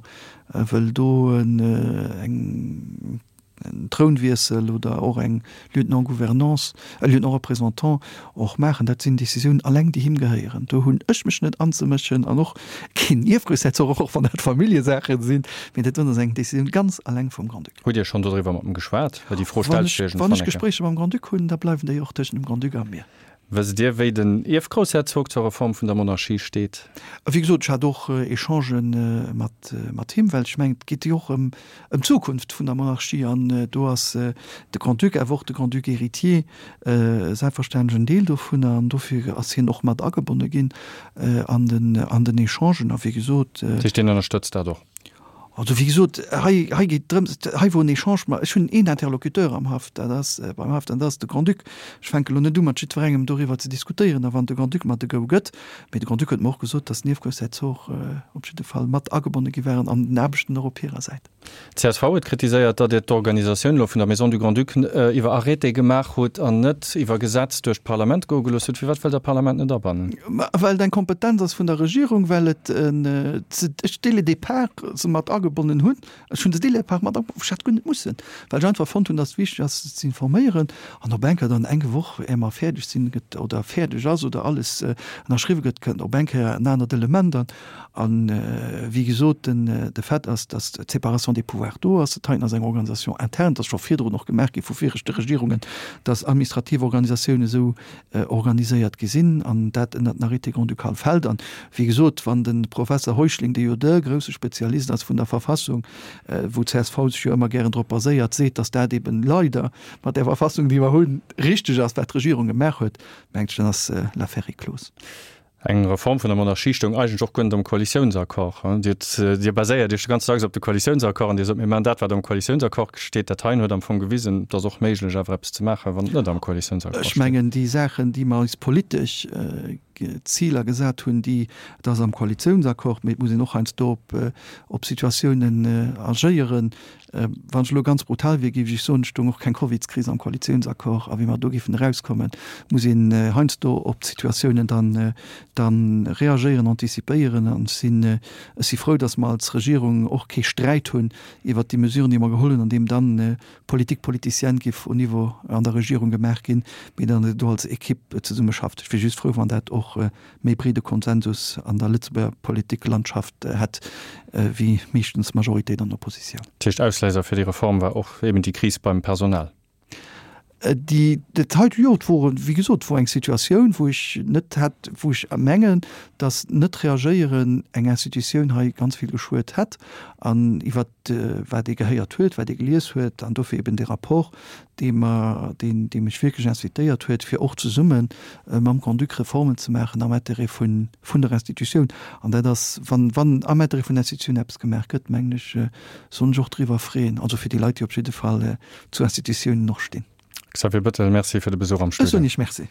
wëll do eng en Trounwiessel oder och eng Lieutenant-gouvernance, e Lieutenant-représentant och maachen. Dat sinn Décisiounen alleng, déi him gehéieren. Do hunn ech mech net anzemëschen an och keen Ierfgroussherzog, och wann dat Familljesaachen sinn. Mee dat ass eng Décisioun ganz alleng vum Grand-Duc. Hutt Dir schonn dodriwwer mat em geschwat? Well déi Fro stellt sech iergendwann Wann ech Gespréicher mam Grand-Duc hunn, da bleiwen déi och tëschent dem Grand-Duc a mir. Wësst Dir, wéi den Ierfgroussherzog zur Reform vun der Monarchie steet? Wéi gesot, ech hat och Echangen mat mat him, well ech mengen, et geet jo och ëm ëm d'Zukunft vun der Monarchie an do ass de Grand-Duc, awer och de Grand-Duc héritier selbstverständlech en Deel dovunner an dofir ass hien och mat agebonne ginn an den an den Echangen a wéi gesot. Dat heescht, hien ënnerstëtzt dat och? Also wéi gesot, hei, hei geet drëms, hei wor en Echange, ma ech hunn een Interlocuteur am Haff, dat ass beim Haff, dat ass de Grand-Duc. Ech fänke lo net u mat jiddwerengem doriwwer ze diskutéieren, a wann de Grand-Duc mer de Go gëtt, mee de Grand-Duc huet mer och gesot, datt d'Niewgroussherzog op jidde Fall mat agebonne gi waren an den Aarbechten och op hirer Säit. D'CSV huet kritiséiert, datt Dir d'Organisatioun elo vun der Maison du Grand-Duc iwwer Arrêté gemaach hutt an net iwwer Gesetz duerch d'Parlament goe gelooss hutt. Firwat wëllt Der d'Parlament net abannen? Well et eng Kompetenz ass vun der Regierung, well et ech dès le départ se mat agebonnen hunn. Ech hunn se dès le départ mat agebonnen, ech hätt guer net mussen, well ech einfach fonnt hunn, datt et wichteg ass, se ze informéieren. An op eng Kéier dann eng Woch, éier mer fäerdeg sinn, gëtt oder fäerdeg ass oder alles ënnerschriwwe gëtt, kënnt op eng Kéier en anert Element an. A wéi gesot, de Fait ass, datt d'Séparation des pouvoirs do ass. Dat heiten ass eng Organisation interne, dat ass scho virdrun och gemaach gi vu viregte Regierungen, datt administrativ Organisatiounen esou organiséiert gi sinn an dat ënnert den Arrêté grand-ducal fält. An, wéi gesot, wann de Professer Heuschling, dee jo de grousse Spezialist ass vun der Verfassung, wou d'CSV sech jo ëmmer gären drop baséiert, seet, datt dat eben leider mat där Verfassung, déi mer hunn, richteg ass, wat d'Regierung gemaach huet, mengt ech, dann ass l'affaire est close. Eng Reform vun der Monarchie stoung eigentlech och guer net am Koalitiounsaccord. Dir hutt, Dir baséiert Iech ganz dacks op de Koalitiounsaccord an Dir sot, mir maachen dat, wat am Koalitiounsaccord steet. Dat heien huet am Fong gewisen, et ass och méiglech, awer eppes ze maachen, wann et net am Koalitiounsaccord steet. Ech mengen, déi Saachen, déi mer eis politesch Ziler gesat hunn, déi, et ass am Koalitiounsaccord, mee et muss een och heiansdo op, op Situatiounen agéieren, Wann ech elo ganz brutal wier, géif ech soen, et stoung och keng Covidskris am Koalitiounsaccord. A wéi mer do géifen erauskommen, muss een heiansdo op d'Situatiounen dann dann reagéieren, anticipéieren. An ech sinn, ech si frou, datt mer als Regierung och kee Sträit hunn iwwert déi Mesuren, déi mer geholl hunn, an deem dann Politique politicienne géif au Niveau an der Regierung gemaach ginn, mee datt een do als Equipe zesummeschafft. Ech wier just frou, wann dat och méi breede Konsensus an der Lëtzebuerger Politiklandschaft hätt wéi meeschtens Majoritéit an Oppositioun. Dat heescht, Ausléiser fir déi Reform war och eben déi Kris beim Personal? Déi, dat hei, jo, et wor, wéi gesot, et wor eng Situatioun, wou ech net hätt, wou ech mengen, datt net reagéieren eng Institutioun hei ganz vill geschuet hätt an iwwert wat ee gehéiert huet, wat ee gelies huet an dofir eben dee Rapport, dee mer, deen, dee mech wierklech incitéiert huet, fir och zesumme mam Grand-Duc Reformen ze maachen am Intérêt vun, vun der Institutioun. An dat ass, wann, wann am Intérêt vun der Institutioun eppes gemaach gëtt, mengen ech, soll ech och driwwer freeën, also fir déi Leit, déi op jidde Fall zu Institutiounen och stinn. Xavier Bettel, Merci fir de Besuch am Studio. Ech soen Iech Merci.